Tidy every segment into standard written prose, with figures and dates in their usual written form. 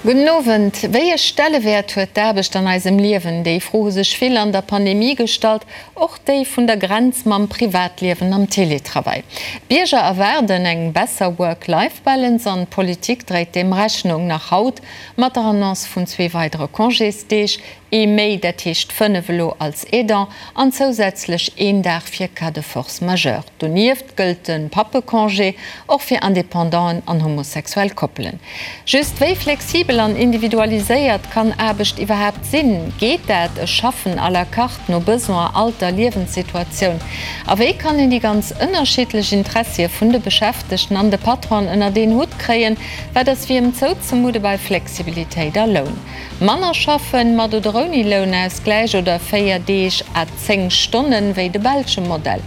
Gudden Owend. Wéi e Stellewäert huet d'Aarbecht an eisem Liewen? Déi Fro hu sech vill an der Pandemie gestallt, och déi vun der Grenz mam Privatliewen am Teletravail. D'Bierger erwaarden eng besser Work-Life-Balance an d'Politik dréit deem Rechnung. Nach haut mat der Annonce vun zwee weidere Congésdeeg, Ee méi, dat heescht 5 elo als Aidant an zousätzlech een Dag fir Cas de force majeure. Donieft gëllt de Pappecongé och fir Independanten an homosexuell Koppelen. Just, wéi flexibel an individualiséiert kann Aarbecht iwwerhaapt sinn? Geet dat, e Schaffen à la carte, no Besoin, Alter, Liewenssituatioun? A wéi kann een déi ganz ënnerschiddlech Interessie vun de Beschäftegten an de Patronen ënnert een Hutt kréien? Wat ass wiem zouzemudde bei Flexibilitéit a Loun? Manner schaffen, mat oder ouni Lounausgläich, oder 4 Deeg à 10 Stonnen, wéi de belsche Modell.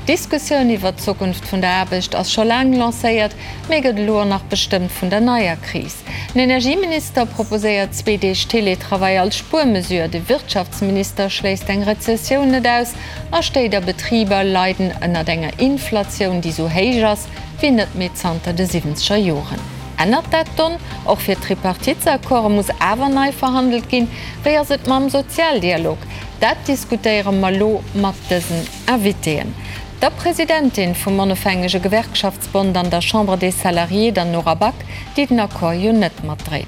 D'Diskussioun iwwert d'Zukunft vun der Aarbecht ass scho laang lancéiert, mee gëtt elo och nach bestëmmt vun der neier Kris. Den Energieminister proposéiert zwee Deeg Teletravail als Spuermesure, de Wirtschaftsminister schléisst eng Rezessioun net aus a Stéit a Betriber leiden ënnert enger Inflatioun, déi sou héich ass wéi net méi zanter de siwwenzeger Joren. Ännert dat d'Donn? Och fir d'Tripartitesaccorde muss awer nei verhandelt ginn. Wéi ass et mam Sozialdialog? Dat diskutéiere mer elo mat dësen Invitéen, der Presidentin vum Onofhängege Gewerkschaftsbond an der Chambre des Salariés, der Nora Back, déi den Accord jo net matdréit,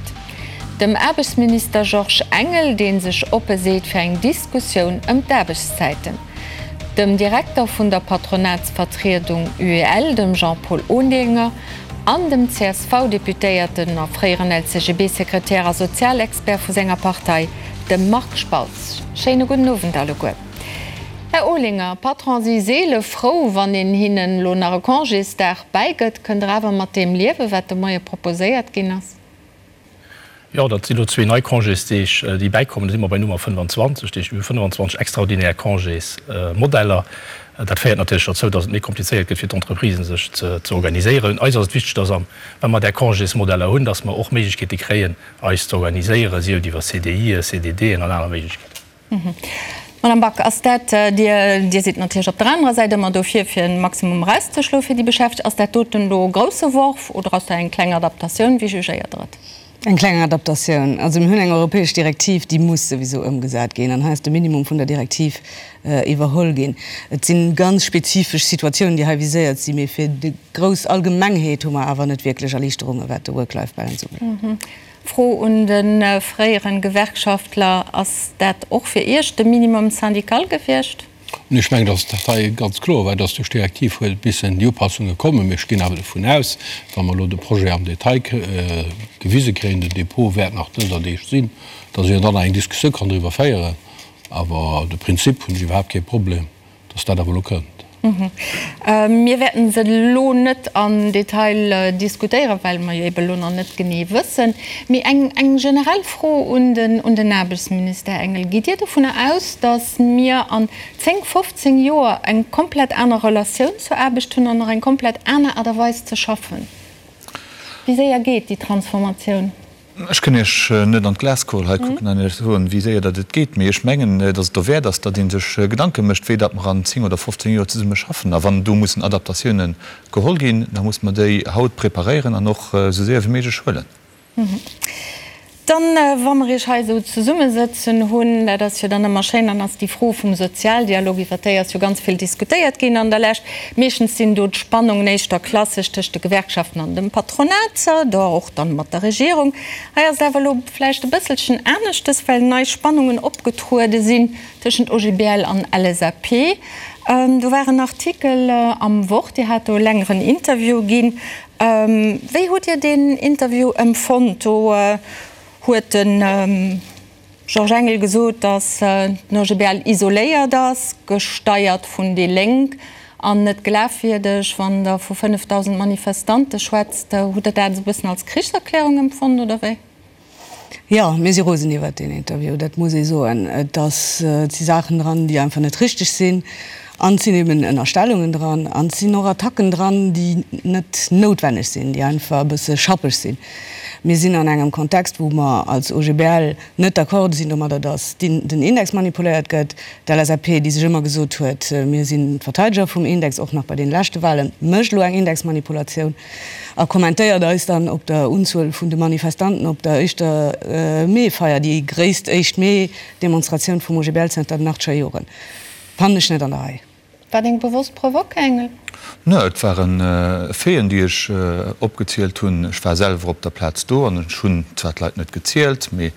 dem Aarbechtsminister Georges Engel, dee sech oppe seet fir eng Diskussioun ëm d'Aarbechtszäiten, dem Direkter vun der Patronatsvertriedung UEL, dem Jean-Paul Olinger, an dem CSV-Deputéierten a fréieren LCGB-Sekretär a Sozialexpert vu senger Partei, dem Marc Spautz. Schéine gudden Owend alleguer. Här Olinger, Patron si seele frou, wann een hinnen elo nach e Congésdag bäigëtt. Kënnt Der awer mat deem liewen, wat de Moie proposéiert ginn ass? Jo, dat sinn elo zwee nei Congésdeeg, déi bäikommen. Da si mer bei Nummer 25. Dat heescht, mir hu 25 extraordinär Congésmodeller. Dat féiert natierlech dozou, datt et méi komplizéiert gëtt fir d'Entreprisen, sech ze organiséieren. Eis ass et wichteg, datt am, wa mer där Congésmodeller hunn, datt mer och Méiglechkeete kréien, eis ze organiséieren, sief et iwwer CDIen, CDDen an aner Méiglechkeeten. Madame Back, ass dat, Dir, Dir sidd natierlech op der anerer Säit ëmmer dofir, fir e Maximum erauszeschloe fir déi Beschäftegt, ass dat doten elo e grousse Worf oder ass dat eng kleng Adaptatioun? Wéi jugéiert Der et? Eng kleng Adaptatioun. Also mir hunn eng europäesch Direktiv, déi muss souwisou ëmgesat ginn an hei ass de Minimum vun der Direktiv iwwerholl ginn. Et si ganz spezifesch Situatiounen, déi hei viséiert sinn, mee fir déi grouss Allgemengheet hu mer awer net wierklech Erliichterunge wat de Work-Life-Balance ubelaangt. Fro un de fréieren Gewerkschaftler, Ass dat och fir Iech de Minimum syndical gewiescht? Ech mengen, datt dat hei ganz kloer war, datt duerch d'Direktiv huet missen déi Upassunge kommen. Mee ech ginn awer dovun aus, wa mer elo de Projet am Detail gewise kréien, den Dépôt wäert nach dëser Deeg sinn, datt een dann nach eng Diskussioun kann driwwer féieren. Awer de Prinzip hunn ech iwwerhaapt kee Problem. dass dat awer elo kënnt. Mir wäerten se elo net am Detail diskutéieren, well mer jo ebe elo nach net genee wëssen. Mee eng generell Fro un den Aarbechtsminister Engel, Gitt Dir dovunner aus, dass mir an 10, 15 Joer eng komplett aner Relatioun zur Aarbecht hunn an och eng komplett aner Aart a Weis ze schaffen? Wéi séier geet déi Transformatioun? Ech kënn Iech net an d'Glaskugel hei kucken an Iech soen, wéi séier datt et geet, mee ech mengen, datt et dowäert ass, datt ee sech Gedanke mécht, wéi datt mer an 10 oder 15 Joer zesumme schaffen. A wann do mussen Adaptatiounen geholl ginn, da musse mer déi haut preparéieren an och esou séier wéi méiglech huelen. Dann, wa mer Iech hei esou zesummesëtzen hunn, dat ass jo dann ëmmer schéin, dann ass déi Fro vum Sozialdialog, iwwert déi ass jo ganz vill diskutéiert ginn an der Lescht. Meeschtens sinn do d'Spannungen éischter klassesch tëscht de Gewerkschaften an dem Patronat, do och dann mat der Regierung. Hei ass et awer elo vläicht e bësselchen aneschtes, well nei Spannungen opgetruede sinn tëschent OGBL an LSAP. Do war en Artikel am Wort, Dir hat do e längeren Interview ginn. Wéi hutt Dir deen Interview empfonnt? Do huet de Georges Engel gesot, datt den OGBL isoléiert ass, gesteiert vun déi Lénk an net glafwierdeg. Wann Der vu 5.000 Manifestante schwätzt, hutt Der dat esou e bëssen als Krichserklärung empfonnt oder wéi? Jo, mir si rosen iwwert deen Interview, dat muss ee soen. Et ass, et si Saachen dran, déi einfach net richteg sinn. An et sinn eben Ënnerstellungen dran an et sinn och Attacken dran, déi net noutwenneg sinn, déi einfach e bësse schappeg sinn. Mir sinn an engem Kontext, wou mer als OGBL net d'accord sinn domadder, datt den Index manipuléiert gëtt. D'LSAP, déi sech ëmmer gesot huet, mir sinn d'Verteideger vum Index, och nach bei deene leschte Wahlen, mécht elo eng Indexmanipulatioun a kommentéiert eis dann op der Unzuel vun de Manifestanten op der éischter Mee-Feier, déi gréisst éischt Mee-Demonstratioun vum OGBL zënter den achtscher Joren. Fannen ech net an der Rei. War deng bewosst Provoque, Engel? Ne, et waren Faiten, déi ech opgezielt hunn. Ech war selwer op der Plaz do an ech hunn zwar d'Leit net gezielt, mee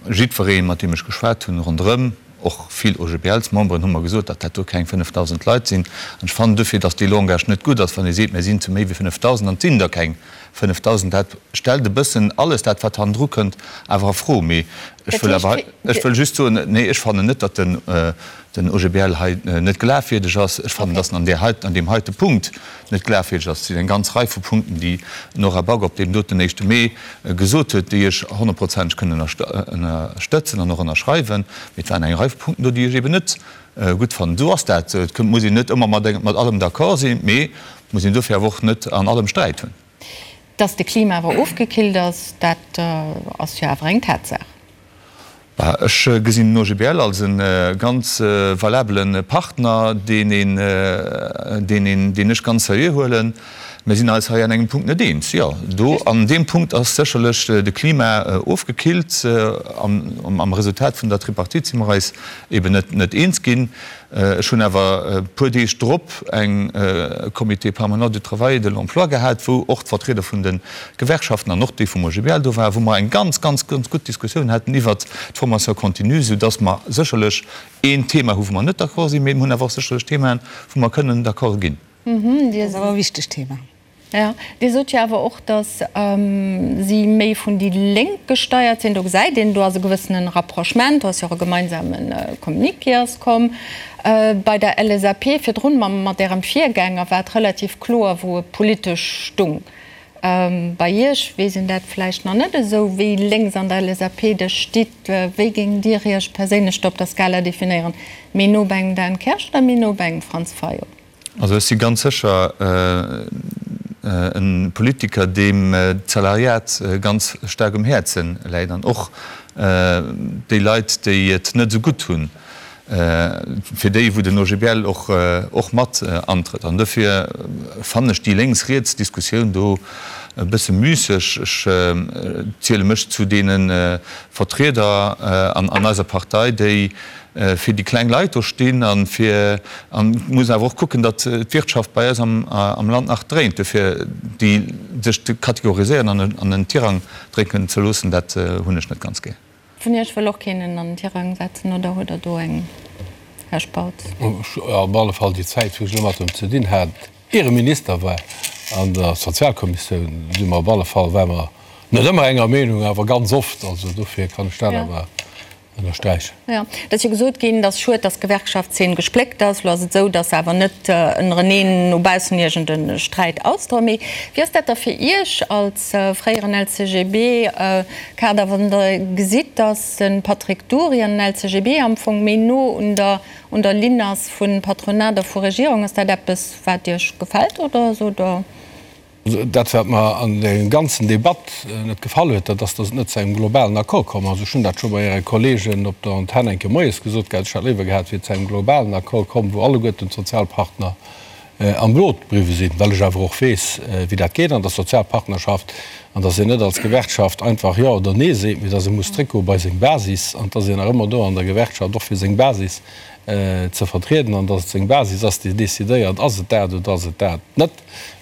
jiddweree mat deem ech geschwat hunn ronderëm, och vill OGBLs-Memberen, hu mer gesot, datt dat do keng 5.000 Leit sinn. An ech fannen dofir, datt dee Langage net gutt ass, wann ee seet, mir sinn zu méi wéi 5.000 an et sinn der keng 5.000. Dat stellt e bëssen alles dat, wat hannendru kënnt, awer a Fro. Mee ech wëll awer, ech wëll just soen, nee, ech fannen net, datt den den OGBL hei net glafwierdeg ass. Ech fannen, dass en an där heiten, an deem heite Punkt net glafwierdeg ass. Et sinn eng ganz Rei vu Punkten, déi d'Nora Back op deem doten éischte Mee gesot huet, déi ech honnertprozenteg kënnen ënnerstëtzen an och ënnerschreiwen. Mee et waren eng Rei vu Punkten do, déi ech eben net gutt fannen. Esou ass dat. Et muss een net ëmmer mat allem d'accord sinn, mee et muss een dofir awer och net an allem Sträit hunn. Dass de Klima awer ofgekillt ass, dat ass jo awer eng Tatsaach. Bah, ech gesinn den OGBL als e ganz valabele Partner, deen een, deen een, deen ech ganz seriö huelen. Mir sinn eis hei an engem Punkt net eens. Jo, do an deem Punkt ass sécherlech de Klima ofgekillt. Am, am Resultat vun der Tripartite si mer eis eben net, net eens ginn. Ech hunn awer e puer Deeg drop eng Comité permanent du travail et de l'emploi gehat, wou och d'Vertrieder vun de Gewerkschaften an och déi vum OGBL do waren, wou mer eng ganz, ganz, ganz gutt Diskussioun haten iwwert d'Formation continue, soudass mer sécherlech een Thema hu wou mer net d'accord sinn, mee mer hunn awer och sécherlech Themaen, wou mer kënnen d'accord ginn. Dat ass awer e wichtegt Thema. Jo, Dir sot jo awer och, datt si méi vun déi Lénk gesteiert sinn. Do gesäit een, do ass e gewëssene Rapprochement, do ass jo och e gemeinsame Communiqué ass komm. Bei der LSAP virdrun, mat Ärem Virgänger, war et relativ kloer, wou e politesch stung. Bei Iech weess een dat vläicht nach net esou, wéi lénks an der LSAP der stitt. Wéi géingt Dir Iech perséinlech do op der Skala definéieren? Méi no bei engem Dan Kersch oder méi no bei engem Franz Fayot? Also ech si ganz sécher e Politiker, deem d'Salariat ganz staark um Häerze läit an och déi Leit, déi et net esou gutt hunn, fir déi wou den OGBL och mat antrëtt. An dofir fannen ech déi lénks-riets Diskussioun do e bësse müsseg. Ech ziele mech zu deene Vertrieder an eiser Partei, déi fir déi kleng Leit do stinn an fir, an et muss een awer och kucken, datt d'Wirtschaft bei eis am Land nach dréint. Dofir déi sech ze kategoriséieren an an en Tirang drécken ze loossen, dat hunn ech net ganz gär. Vun Iech wëll och keen en an den Tirang setzen, oder huet Der do eng, Här Spautz? Op alle Fall déi Zäit, wou ech elo mat em ze dinn hat, ier e Minister war, an der Sozialkommissioun, si mer op alle Fall, ware mer net ëmmer enger Meenung, awer ganz oft. Also dofir kann ech dat awer ënnersträichen. Jo, et ass jo gesot ginn, et ass schued, datt d'Gewerkschaftszeen gespléckt ass. Elo ass et esou, datt se awer net ënnereneen no baussen iergend e Sträit ausdroen. Mee wéi ass dat da fir Iech als fréieren LCGB-Kader, wann Der gesitt, datt de Patrick Dury an den LCGB am Fong méi no un der un der Linn ass vu Patronat a vu Regierung? Ass dat eppes, wat Iech gefält oder sot Der? Dat, wat mer an der ganzen Debatt net gefall huet, dat ass, datt et net zu engem globalen Accord komm ass. Ech hunn dat scho bei Äre Kolleegen op der Antenn eng Kéier moies gesot gehat, ech hätt léiwer gehat, et wier zu engem globalen Accord komm, wou alleguerten d'Sozialpartner am Boot bliwwe sinn, well ech awer och weess, wéi dat geet an der Sozialpartnerschaft an datt een net als Gewerkschaft einfach Jo oder Nee seet, mee datt ee muss zréckgoe bei seng Basis an datt een nach ëmmer do an der Gewerkschaft och fir seng Basis ze vertrieden an datt et seng Basis ass, déi decidéiert, ass et dat oder ass et dat net.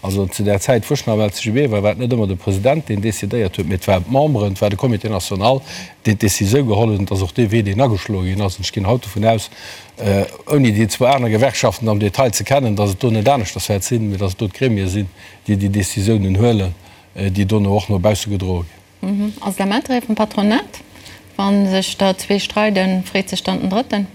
Also zu där Zäit, wou ech nach am LCGB war, war et net ëmmer de President, deen decidéiert huet, mee et waren d'Memberen, et war de Comité national, deen d'Décisioun geholl huet. An et ass och dee Wee, deen ageschloe ginn ass. An ech ginn haut dovun aus, ouni déi zwou aner Gewerkschaften am Detail ze kennen, datt et do net aneschters wäert sinn, mee datt et do d'Gremie sinn, déi déi Décisiounen huelen, déi dono och no bausse gedroe ginn. Ass et am Interêt vum Patronat, wa sech der zwee streiden, freet sech dann den Drëtten?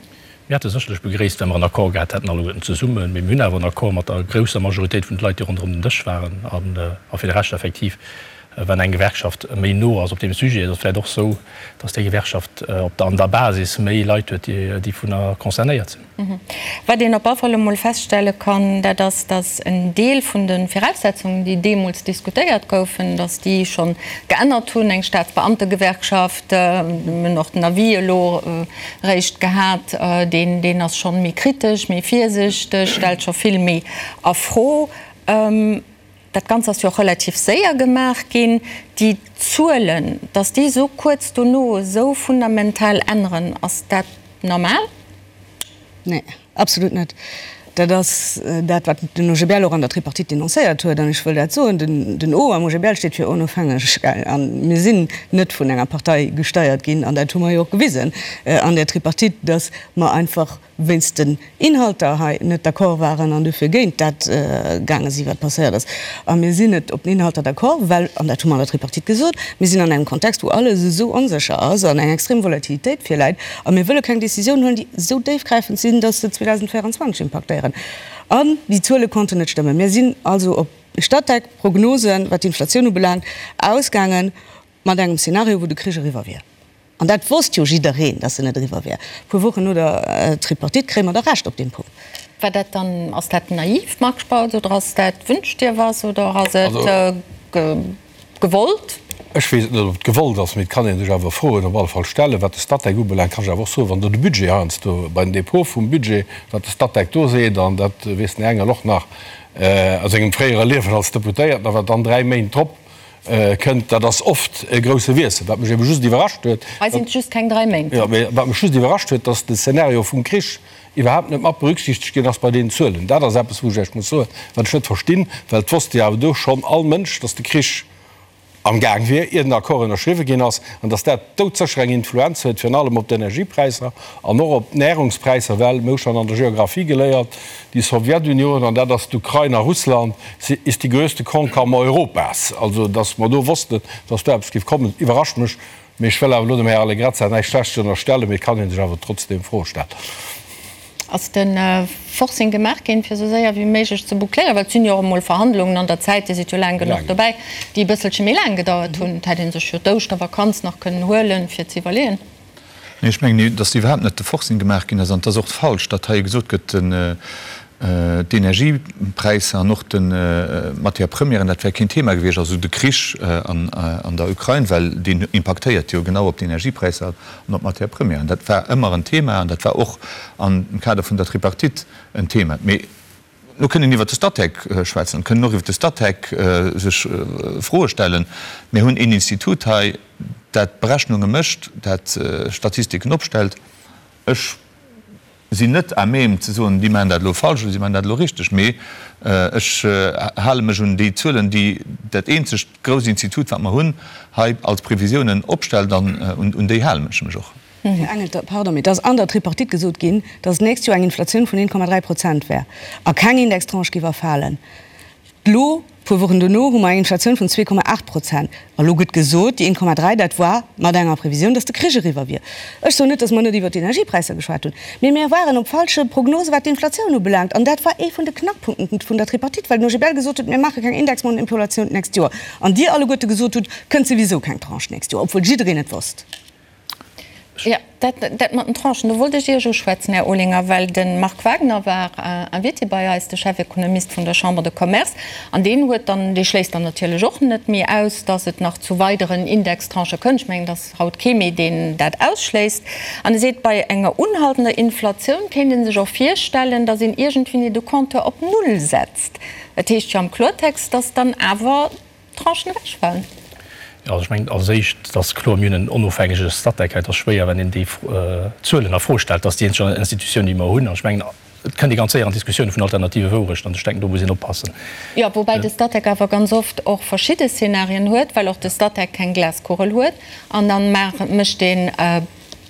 Mir hätte sécherlech begréisst, wa mer en Accord gehat hätten, alleguerten zesummen. Mee mir hunn awer en Accord mat der grousser Majoritéit vun de Leit, déi ronderëm den Dësch waren. A fir de Rescht effektiv. Wann eng Gewerkschaft méi no ass op deem Sujet, ass et vläicht och esou, datt déi Gewerkschaft op der an der Basis méi Leit huet, déi dovunner concernéiert sinn. Wat een op alle Fall emol feststelle kann, dat ass, datt en Deel vun de Viraussetzungen, déi deemools diskutéiert goufen, datt déi schonn geännert hunn. Eng Staatsbeamtegewerkschaft, mir hunn och den Avis elo eréischt gehat, deen deen ass schonn méi kritesch, méi virsichteg, stellt scho vill méi a Fro. Dat Ganzt ass jo och relativ séier gemaach ginn. Déi Zuelen, datt déi esou kuerz dono esou fundamental änneren, ass dat normal? Nee, absolut net. Dat ass dat, wat den OGBL och an der Tripartite denoncéiert huet. An ech wëll dat soen, den O am OGBL steet fir onofhängeg. A mir sinn net vun enger Partei gesteiert ginn, an dat hu mer jo och gewisen an där Tripartite, datt mer einfach wéinst den Inhalter hei net d'accord waren an dofir géint dat gaange sinn, wat passéiert ass. A mir sinn net op den Inhalter d'accord, well, an dat hu mer an der Tripartite gesot, mir sinn an engem Kontext, wou alles esou onsécher ass an eng extrem Volatilitéit virläit a mir wëlle keng Décisioun huelen, déi esou déifgräifend sinn, dass se 2024 impaktéieren. An déi Zuele konnten net stëmmen. Mir sinn also op Statec-Prognosen, wat d'Inflatioun ubelaangt, ausgaangen mat engem Szenario, wou de Krich eriwwer wier. An dat wosst jo jiddereen, dass en net eriwwer wär. E puer Wochen no der Tripartite kréie mer da Recht op deem Punkt. War dat dann, ass dat naiv, Marc Spautz, oder ass dat wünsch dir was, oder ass et gewollt? Ech weess et net, ob et gewollt ass, mee et kann ee sech awer Froen op alle Fall stellen. Wat de Statec ubelaangt, kann ech awer och soen, wann do de Budget heiansdo bei den Dépôts vum Budget, wat de Statec do seet, an dat weess den Här Engel och nach aus sengem fréiere Liewen als Deputéierten, a wat dann 3 Méint drop kënnt, dat ass oft e grousse Wiessel. Wat mech ebe just iwwerrascht huet, Hei sinn et just keng 3 Méint. Jo, mee wat mech just iwwerrascht huet, dass de Szenario vum Krich iwwerhaapt net mat berücksichtegt ginn ass bei deenen Zuelen. Dat ass eppes, wou ech Iech muss soen, wat ech net verstinn, well et wosst jo awer do schonn all Mënsch, dass de Krich am Gaang wier, ier den Accord ënnerschriwwe ginn ass, an dass dat doudsécher eng Influenz huet, virun allem op d'Energiepräisser an och op d'Närungspräisser, well mir hu schonn an der Geographie geléiert, Die Sowjetunion, an dat ass d'Ukrain a Russland, ist die größte Kornkammer Europas. Also, datt mer do wossten, datt do eppes géif kommen, iwwerrascht mech. Mee ech wëll awer elo dem Här Allegrezza näischt Schlechtes ënnerstellen, mee et kann ee sech awer trotzdeem Froe stellen. Ass de Forcing gemaach ginn, fir esou séier wéi méiglech ze boucléieren? Well et sinn jo och emol Verhandlungen an der Zäit, Dir sidd jo laang genuch dobäi, déi e bësselche méi laang gedauert hunn. Et hätt ee sech jo d'Ouschtervakanz nach kënnen huelen, fir ze iwwerleeën. Nee, ech mengen, datt iwwerhaapt net de Forcing gemaach ginn ass. An et ass och falsch, datt hei gesot gëtt, d'Energiepräisser an och d'Matières premièren, dat wär keen Thema gewiescht, also de Krich an der Ukrain, well deen impaktéiert jo genau op d'Energiepräisser an op d'Matières premièren. Dat war ëmmer en Thema an dat war och am Kader vun der Tripartite en Thema. Mee Lo kënnt een iwwert de Statec schwätzen, kënnen och iwwert de Statec sech Froe stellen. Mir hunn een Institut hei, dat Berechnunge mécht, dat Statistiken opstellt. Ech sinn net à même ze soen, déi maachen dat elo falsch oder si maachen dat elo richteg, mee ech hale mech un déi Zuelen, déi dat eenzegt grousst Institut, wat mer hunn, hei als Previsiounen opstellt, an un déi halen ech mech och. Här Engel, pardon, mee et ass an der Tripartite gesot ginn, datt d'nächst Joer eng Inflatioun vun 1,3 Prozent wär a keng Indextranche géif erfalen. Elo, puer Wochen dono, hu mer eng Inflatioun vun 2,8 Prozent. A lo gëtt gesot, déi 1,3, dat war mat enger Previsioun, datt de Krich eriwwer wier. Ech soen net, datt mer net iwwert d'Energiepräisser geschwat hunn, mee mir waren op falsche Prognose wat d'Inflatioun ubelaangt. An dat war ee vun de Knackpunkten vun der Tripartite, well den OGBL gesot huet, mir maache keng Indexmanipulation d'nächst Joer. An Dir alleguerte gesot hutt, kënnt souwisou keng Tranche d'nächst Joer, obwuel jiddereen et wosst. Jo, dat, dat mat den Tranchen, do wollt ech Iech uschwätzen, Här Olinger, well de Marc Wagner war Invité bei eis, de Chefekonomist vun der Chambre de Commerce, an deen huet dann, dee schléisst dann natierlech och net méi aus, datt et nach zu weideren Indextranchë kënnt. Ech mengen, et ass haut kee méi, deen dat ausschléisst. An e seet, bei enger unhaltender Inflatioun kéint ee sech och virstellen, datt een iergendwéini de Compteur op Null setzt. Dat heescht jo am Kloertext, datt dann awer Tranchen ewechfalen. Jo, also ech mengen als éischt, et ass kloer, mir hunn en onofhängege Statec. Et ass schwéier, wenn een déi Zuelen a Fro stellt. Dat ass déi eenzeg Institutioun, déi mer hunn. An ech mengen, et kënnt ee ganz séier an Diskussioune vun alternative Wourechten an ech denken, do muss een oppassen. Jo, woubäi de Statec awer ganz oft och verschidde Szenarien huet, well och de Statec keng Glaskugel huet. An da mécht een.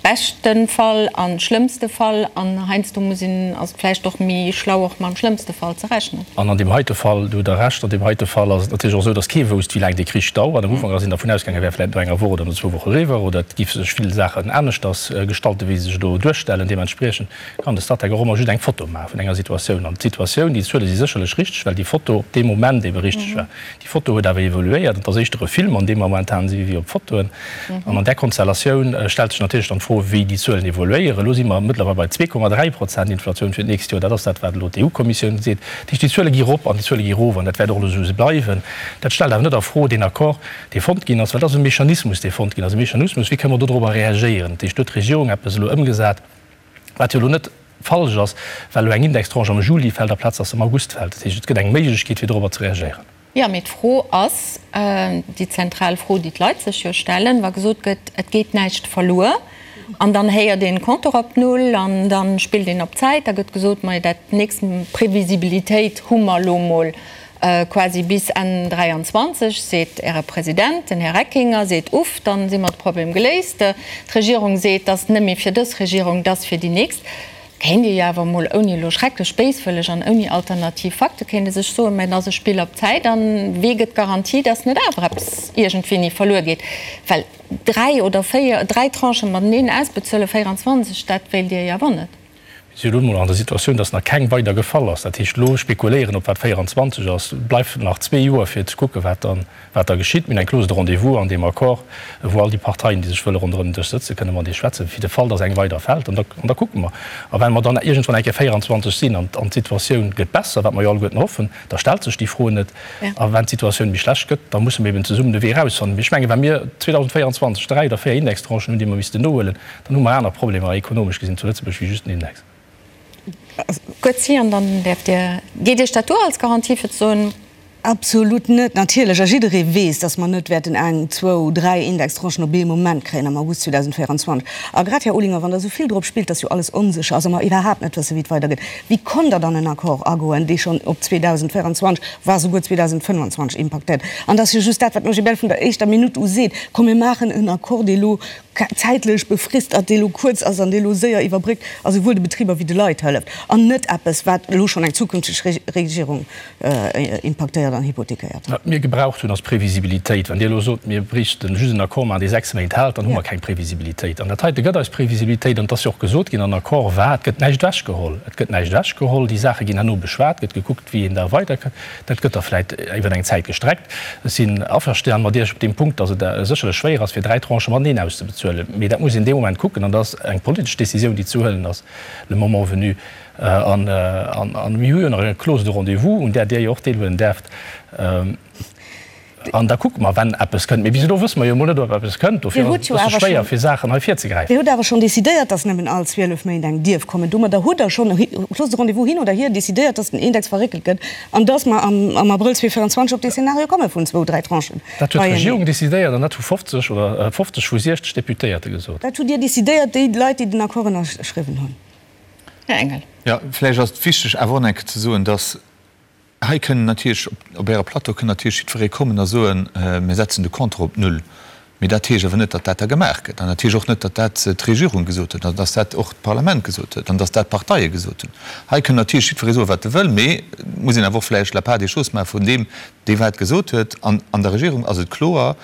Beschte Fall a schlëmmste Fall an heiansdo muss een, ass et vläicht och méi schlau och mam schlëmmste Fall ze rechnen. An an deem heite Fall, do hutt Der Recht, an deem heite Fall ass et natierlech och esou, datt kee wousst, wéi laang dee Krich dauert. Am Ufank ass een dervun ausgaangen, e wär vläicht no enger Woch oder no zwou Woche eriwwer oder et géife sech vill Saachen aneschters gestalten, wéi se sech elo duerstellen. Deementspriechend kann de Statec och ëmmer just eng Foto maache vun enger Situatioun. An d'Situatioun, déi Zuele si sécherlech richteg, well déi Foto op deem Moment ebe richteg war. Déi Foto huet awer evoluéiert. Et ass éischter e Film, an deem mer momentan si wéi op Fotoen. An an där Konstellatioun stellt sech natierlech dann d'Fro, wéi déi Zuelen evoluéieren. Elo si mer mëttlerweil bei 2,3 Prozent Inflatioun fir d'nächst Joer. Dat ass dat, wat elo d'EU-Kommissioun seet. Dat heescht, déi Zuele gi rop an déi Zuele gi erof an dat wäert och elo esou bleiwen. Dat stellt awer net a Fro deen Accord, dee fonnt ginn ass, well dat ass e Mechanismus, dee fonnt ginn ass, e Mechanismus, wéi kënne mer dodrobber reagéieren. Dat heescht, do huet d'Regierung eppes elo ëmgesat, Wat jo elo net falsch ass, well elo eng Indextranche am Juli fält aplaz dass se am August fält. Dat heescht, et gëtt eng Méiglechkeet, fir dorobber ze reagéieren. Jo, mee d'Fro ass, déi zentral Fro, déi d'Leit sech jo stellen, wa gesot gëtt, et geet näischt verluer, an dann héiert een Compteur op Null an da spillt een op Zäit, da gëtt gesot, ma dat nächst Previsibilitéit hu mer elo mol Quasi bis Enn 23, seet Äre President, den Här Reckinger seet, Uff, dann si mer de Problem geléist. D'Regierung seet, dass net méi fir dës Regierung, dass fir déi nächst. Kéint ee jo awer emol, ouni elo schrecklech béiswëlleg an ouni alternativ Fakte, kéint ee sech soen, mä et ass e Spill op Zäit an wee gëtt d'Garantie, dass net awer eppes iergendwéini verluer geet? Well dräi oder véier, dräi Tranchen mateneen ausbezuelen, 24, dat wéilt Dir jo awer net. Mir si elo emol an der Situatioun, dass nach keng weider gefall ass. Dat heescht, elo spekuléieren, ob wat 24 ass, bleift nach zwee Joer fir ze kucken, wat dann, wat da geschitt. Mir hunn eng Clause de rendez-vous an deem Accord, wou all déi Parteien, déi sech wëlle ronderëm den Dësch sëtzen, kënne mat eis schwätzen, fir de Fall, dass eng weider fält. An da, an da kucke mer. A well mer dann iergendwann eng Kéier 24 sinn an, an d'Situatioun gëtt besser, wat mer jo alleguerten hoffen, da stellt sech déi Fro net. A wann d'Situatioun méi schlecht gëtt, da musse mer eben zesummen de Wee erausfannen. Mee ech mengen, wa mir 2024 dräi oder véier Indextranchen hunn, déi mer missten nohuelen, Dann hu mer aner Problemer ekonomesch gesinn zu Lëtzebuerg wéi just den Index. Goetz, an dann däerft Dir, geet Iech dat duer als Garantie fir ze soen? Absolut net, natierlech. A jidderee weess, datt mer net wäerten eng, zwou, dräi Indextranchen op ee Moment kréien am August 2024. A grad, Här Olinger, wann Der esou vill drop spillt, datt jo alles onsécher ass a mer iwwerhaapt net wëssen, wéi et weidergeet, wéi konnt Der dann en Accord agoen, dee schonn op 2024, wa souguer 2025 impaktéiert? An et ass jo just dat, wat den OGBL vun der éischter Minutt u seet, Komm mir maachen en Accord, dee elo zäitlech befrist ass, dee elo kuerz ass an dee elo séier iwwerbréckt a souwuel de Betriber wéi de Leit hëlleft, an net eppes, wat elo schonn eng zukünfteg Regierung impaktéiert an hypothekéiert. Wat mir gebraucht hunn, ass Previsibilitéit. Wann Dir elo sot, mir bréichten just en Accord maachen, dee 6 Méint hält, dann hu mer keng Previsibilitéit. An dat heite gëtt eis Previsibilitéit. An et ass jo och gesot ginn, an Accord war, et gëtt näischt ewechgeholl. Et gëtt näischt ewechgeholl. Déi Saache ginn herno beschwat, gëtt gekuckt, wéi een da weiderkënnt. Dat gëtt da vläit iwwer eng Zäit gestreckt. Ech sinn averstan mat Iech op deem Punkt, datt et sécherlech schwéier ass, fir dräi Tranchë mateneen auszebezuelen. Mee dat muss een dee Moment kucken an dat ass eng politesch Décisioun, déi ze huelen ass, le moment venu. An mir hu jo nach eng Clause de rendez-vous, un där Dir jo och deelhuelen däerft. An da kucke mer, wenn eppes kënnt. Mee bis elo wësse mer jo emol net, ob eppes kënnt. Dofir ass et e bësse schwéier, fir Saachen hei virzegräifen. Dir hutt awer schonn decidéiert, dass nëmmen all 12 Méint eng dierf kommen. Domadder hutt Der schonn, Clause de rendez-vous hin oder hier, decidéiert, dass den Index verréckelt gëtt an dass mer am Abrëll 2024 op dee Szenario komme vun zwou, dräi Tranchen. Dat huet d'Regierung decidéiert an dat hu 50 oder 50 vu 60 Deputéierte gesot. Dat hutt Dir decidéiert, déi Leit, déi den Accord ënnerschriwwen hunn. Här Engel. Jo, vläicht ass et wichteg awer och nach eng Kéier ze soen, dass Hei kënnen natierlech, op Äre Plateau kënn natierlech jiddweree kommen a soen, mir setzen de Compteur op Null. Mee dat heescht awer net, datt dat da gemaach gëtt. An dat heescht och net, datt dat d'Regierung gesot huet an datt dat och d'Parlament gesot huet an datt dat d'Parteie gesot hunn. Hei kënn natierlech jiddweree soen, wat e wëll, mee et muss een awer och vläicht la part des choses maache vun deem, dee wat gesot huet. An an der Regierung ass et kloer,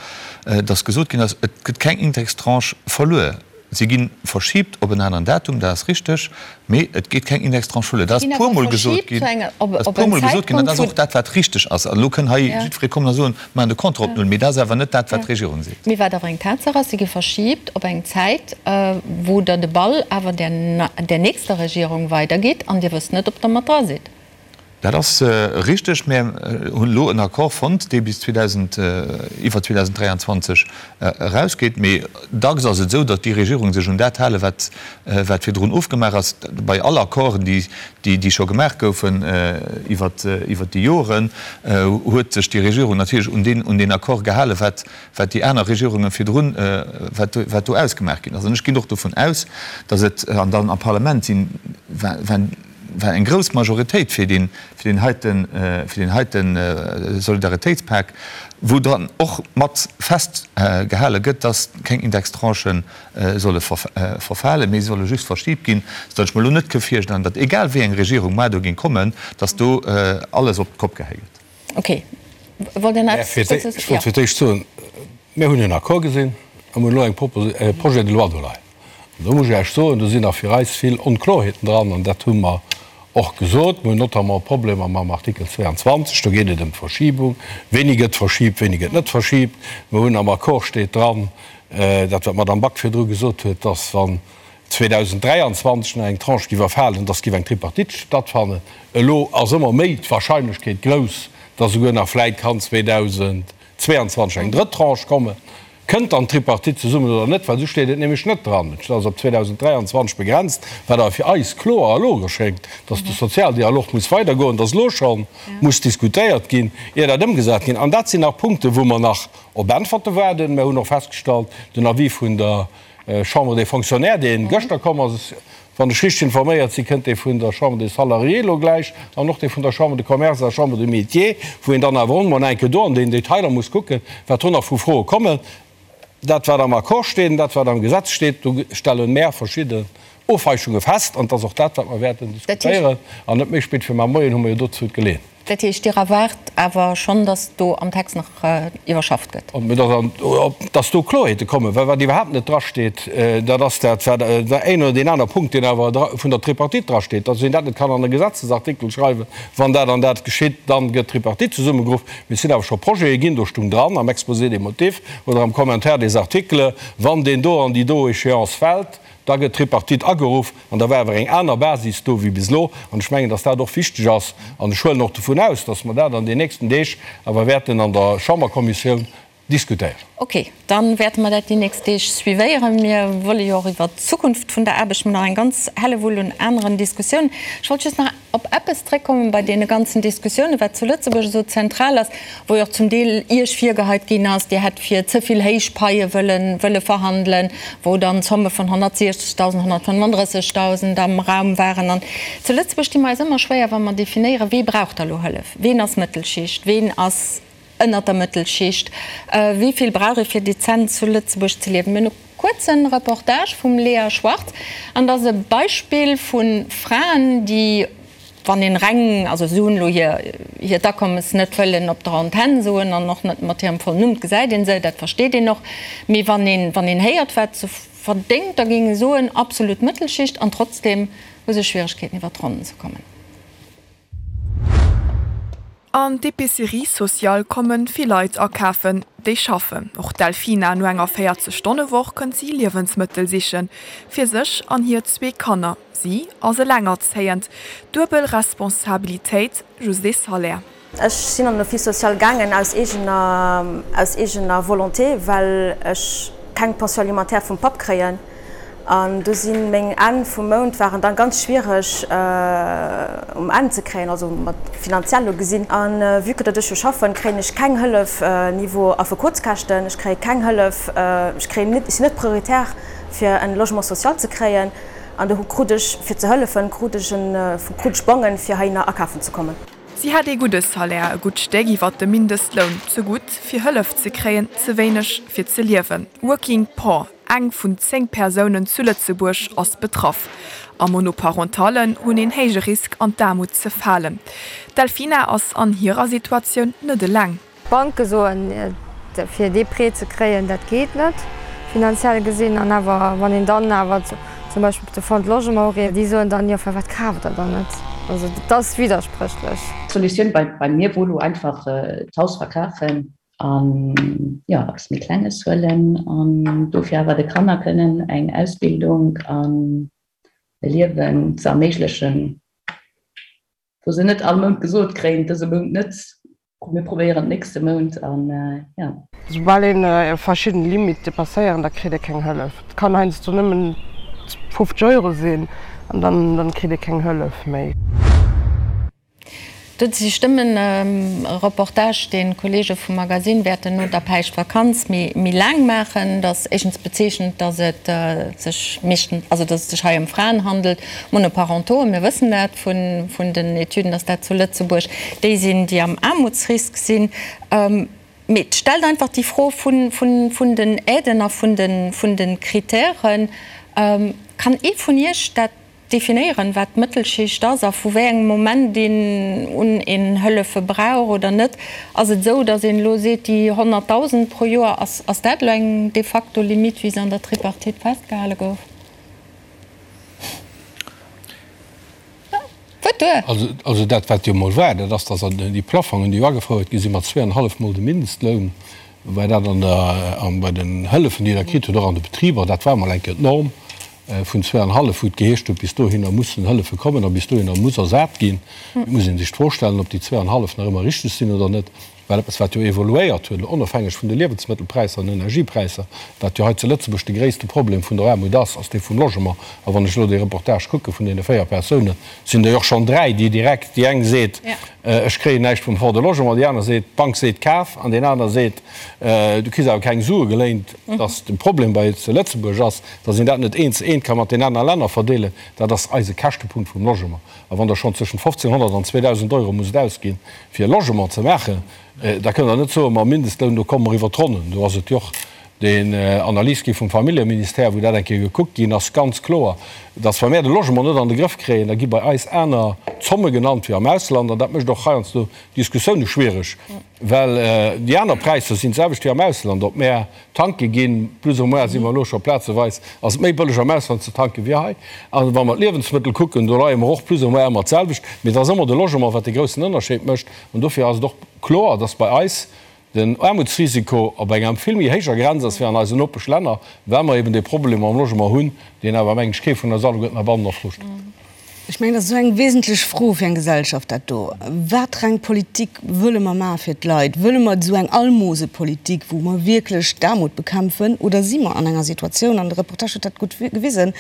datt gesot ginn ass, et gëtt keng Indextranche verluer. Si gi verschibt op en aneren Datum, dat ass richteg, mee et geet keng Indextranche verluer. Dat ass e puermol gesot ginn, dat ass e puermol gesot ginn an dat ass och dat, wat richteg ass. An elo kënn hei jiddweree kommen a soen, mir maachen de Compteur op Null, mee dat ass awer net dat, wat d'Regierung seet. Mee wat awer eng Tatsaach ass, si gi verschibt op eng Zäit, wou Der de Ball awer där nächster Regierung weidergitt an Dir wësst net, ob Der mat dra sidd. Dat ass richteg. Mir hunn elo en Accord fonnt, dee bis 2000, iwwer 2023 erausgeet. Mee dacks ass et esou, datt déi Regierungen sech un dat halen, wat, wat virdrun ofgemaach ass. Bei all Accorden, déi, déi scho gemaach goufen iwwer, iwwer déi Joren, huet sech déi Regierung natierlech un deen, un deen Accord gehalen, wat, wat déi aner Regierunge virdrun, wat, wat do ausgemaach ginn ass. An ech ginn och dovun aus, datt et, an dann am Parlament sinn, wa. war eng grouss Majoritéit fir deen, fir deen heiten, fir deen heite Solidaritéitspak, wou dann och mat festgehale gëtt, dass keng Indextranchen solle verfalen, mee se solle just verschibt ginn, soudatt ech mer elo net ke virstellen, datt egal wéi eng Regierung mar do géing kommen, datt do alles op d'Kopp gehäi gëtt. Ok. Wollt Dir nach eppes dozou soen? Ech wollt fir d'éischt soen, mir hunn en Accord gesinn a mir hunn elo eng e Projet de loi do leien. An do muss ech Iech soen, do sinn nach fir eis vill Onklorheeten dran an dat hu mer och gesot. Mir hunn notamment Problemer mam Artikel 22, do geet et ëm d'Verschiebung, wéini gëtt verschiebt, wéini gëtt net verschiebt. Mir hunn am Accord steet dran, Dat, wat d'Madame Back virdru gesot huet, dass, wann 2023 nach eng Tranche géif erfalen, dass géif eng Tripartite stattfannen. Elo ass ëmmer méi d'Wahrscheinlechkeet grouss, dass esouguer nach vläit kann 2022 eng drëtt Tranche kommen. Kënnt dann d'Tripartite zesummen oder net? Well esou steet et nämlech net dran. Et ass op 2023 begrenzt, wat awer fir eis kloer a logesch schéngt, dass de Sozialdialog muss weidergoen, dass elo scho muss diskutéiert ginn, ier dat ëmgesat ginn. An dat sinn nach Punkten, wou mer nach Op Äntwerte waarden. Mer hunn och festgestallt, den Avis vun der Chambre des Fonctionnaires, dee gëschter komm ass, wann ech richteg informéiert sinn, kënnt dee vun der Chambre des Salariés elo gläich an och dee vun der Chambre de Commerce a Chambre des Métiers, wou een dann awer och emol eng Kéier do an den Detailer muss kucken, wat do nach vu Froe kommen. Dat, wat am Accord steet an dat, wat am Gesetz steet, do stelle mer verschidde Ofweichunge fest. An et ass och dat, wat mer wäerten diskutéieren. An net méi spéit wéi mar Moien hu mer jo dozou d'Geleeënheet. Dat heescht, Dir erwaart awer schonn, datt do am Text nach iwwerschafft gëtt? Datt do Kloerheete kommen, well wat iwwerhaapt net drasteet, dat ass dat, wat een oder deen aner Punkt, deen awer vun der Tripartite drasteet, datt een dat net kann an e Gesetzesartikel schreiwen, wann dat an dat geschitt, dann gëtt d'Tripartite zesummegeruff. Mee et sinn awer scho Projete ginn, do stung dran am Exposé des motifs oder am Commentaire des articles, wann deen do an déi do Échéance fält, Da gëtt d'Tripartite ageruff an da war awer eng aner Basis do wéi bis elo. An ech mengen, dass dat och wichteg ass. An ech huelen och dovun aus, dass mer dat an den nächsten Deeg awer wäerten an der Chamberkommissioun diskutéieren. Okay, da wäerte mer dat déi nächst Deeg suivéieren. Mir wëlle jo och iwwert d'Zukunft vun der Aarbecht nach eng ganz Hellewull un aneren Diskussiounen. Ech wollt just nach op eppes zréckkommen bei deene ganzen Diskussiounen, wat zu Lëtzebuerg esou zentral ass, wou jo och zum Deel Iech virgeheit ginn ass, Dir hätt fir ze vill héich Paie wëllen, wëlle verhandelen, wou dann Zomme vun 160.000, 135.000 am Raum waren. An zu Lëtzebuerg di mer eis ëmmer schwéier, wa mer definéieren, wee brauch da lo Hëllef, ween ass Mëttelschicht, ween ass ënnert der Mëttelschicht, wéi vill brauch ee fir dezent zu Lëtzebuerg ze liewen. Mir hunn e kuerze Reportage vum Lea Schwartz an dat ass e Beispill vu Fraen, déi, wann een reng, also si hunn elo hir hiert Akommes net wëllen op der Antenn soen an och net mat hirem vollen Numm, et gesäit ee se, dat versteet een och, mee wann een, wann een héiert wat se verdéngt, da géing ee soen, absolut Mëttelschicht an trotzdem hu se Schwieregkeeten iwwer d'Ronnen ze kommen. An d'Epicerie sociale komme vill Leit akafen, déi schaffen. Och d'Delfina, no enger 40 Stonne-Woch kënnt si Liewensmëttel sichen, fir sech an hir zwee Kanner. Si ass elengerzéiend, duebel Responsabilitéit, just ee Salaire. Ech sinn an den Office social gaangen aus eegener, aus eegener Volonté, well ech keng Pension alimentaire vum Papp kréien. An do si meng Enn vum Mount waren dann ganz schwiereg um Enn ze kréien, also mat finanziell elo gesinn. A vue que datt ech jo schaffen, kréien ech keng Hëllef niveau Affekotskäschten, ech kréie keng Hëllef, ech kréien net, ech sinn net prioritär fir en Logement social ze kréien. An do krut ech, fir ze hëllefen, krut ech en, krut ech Bongen fir heihinner akafen ze kommen. Si hätt ee gudde Salaire, e gutt Stéck iwwert dem Mindestloun, ze gutt fir Hëllef ze kréien, ze wéineg fir ze liewen. Working Poor, Eng vun 10 Persounen zu Lëtzebuerg ass betraff. A Monoparentallen hunn een héije Risk an d'Aarmut ze falen. D'Delfina ass an hirer Situatioun net eleng. D'Banke soen, fir dee Prêt ze kréien, dat geet net, finanziell gesinn. An awer, wann een dann awer zum Beispill op de Fonds de Logement ureet, déi soen dann, jo firwat kaaft der dann net? Also dat ass widderspréchlech. D'Solutioun bei mir wor lo einfach d'Haus verkafen an jo eppes méi Klenges huelen an dofir awer de Kanner kënnen eng Ausbildung an e Liewen ze erméiglechen, wou se net all Mount gesot kréien, dëse Mount net, mir probéieren d'nächste Mount an jo. Soubal een verschidden Limite depasséieren, da kritt ee keng Hëllef. Et kann heiansdo nëmmen 50 Euro sinn an dann kritt ee keng Hëllef méi. Do si Stëmmen. E Reportage, deen d'Kollege vum Magasinn wäerten no der Päischtvakanz méi laang maachen. Dat ass éischtens bezeechnend, datt et sech meeschtens, also datt et sech hei ëm Fraen handelt, Monoparentaux, mir wëssen dat vun den Etüden, datt dat zu Lëtzebuerg déi sinn, déi am Aarmutsrisk sinn. Mee et stellt einfach déi Fro vun den Aiden a vun de Kritären. Kann ee vun Iech dat definéieren, wat d'Mëttelschicht ass a vu wéi engem Moment een un een Hëllefe brauch oder net? Ass et esou, datt een elo seet, déi 100.000 pro Joer, ass, ass dat elo eng de facto Limitt, wéi se an der Tripartite festgehale gouf? Wuert duer! Also dat, wat jo emol war, dat ass, datt déi Plafongen, déi jo agefouert gi sinn, mat zweeanenhallef Mol de Mindestloun, war dat an der, bei den Hëllefen, déi Der kritt hutt, och an de Betriber, dat war emol eng Kéier d'Norm. Vun zweeanhallef, wou et geheescht huet, bis dohinner mussen Hëllefe kommen a bis dohinner muss ersat ginn. Et muss ee sech d'Fro stellen, ob déi zweeanhallef nach ëmmer richteg sinn oder net, well eppes, wat jo evoluéiert huet, elo onofhängeg vun de Liewensmëttelpräisser an Energiepräisser, wat jo hei zu Lëtzebuerg de gréisste Problem vun der Aarmut ass, ass dee vum Logement. A wann ech elo dee Reportage kucke vun deene 4 Persounen, sinn der jo och schonn 3, déi direkt, déi eng seet, ech kréien näischt vum Fonds de Logement, déi aner seet, d'Bank seet, kaf, an deen aner seet, du kriss awer keng Sue geléint, dass de Problem bei zu Lëtzebuerg ass, Dass een dat net eent zu eent ka mat den aner Länner verdeelen, dat ass eise Käschtepunkt vum Logement. A wann Der schonn zwëschent 1.500 an 2.000 Euro musst ausginn, fir e Logement ze maachen, da kënnt Der net soen, mam Mindestloun, do komme mer iwwert d'Ronnen. Do ass et jo och den Analys gi vum Familljeministère, wou dat eng Kéier gekuckt ginn ass, ganz kloer, dass wa mär de Logement net an de Grëff kréien, da gi bei eis aner Zomme genannt wéi am Ausland. An dat mécht och heiansdo Diskussioune schwiereg, well déi aner Präisser sinn d'selwecht wéi am Ausland. Ob mär Tanke ginn, plus ou moins si mer elo scho plazeweis, ass et méi bëlleg am Ausland ze tanken wéi hei. A wa mer d'Liewensmëttel kucken, do leie mer och plus ou moins ëmmer d'selwecht. Mee et ass ëmmer de Logement, wat de groussen Ënnerscheed mécht. An dofir ass et och kloer, dass bei eis den Aarmutsrisiko op enger vill méi héijer Grenz ass wéi an eisen Nopeschlänner, well mer eben dee Problem mam Logement hunn, deen awer, mengen ech, kee vun eis alleguerten heibannen a Fro stellt. Ech mengen, dat ass esou eng wesentlech Fro fir eng Gesellschaft, dat do. Watereng Politik wëlle mer maache fir d'Leit? Wëlle mer esou eng Almosepolitik, wou mer wierklech d'Aarmut bekämpfen, oder si mer an enger Situatioun, an de Reportage huet dat gutt gewisen,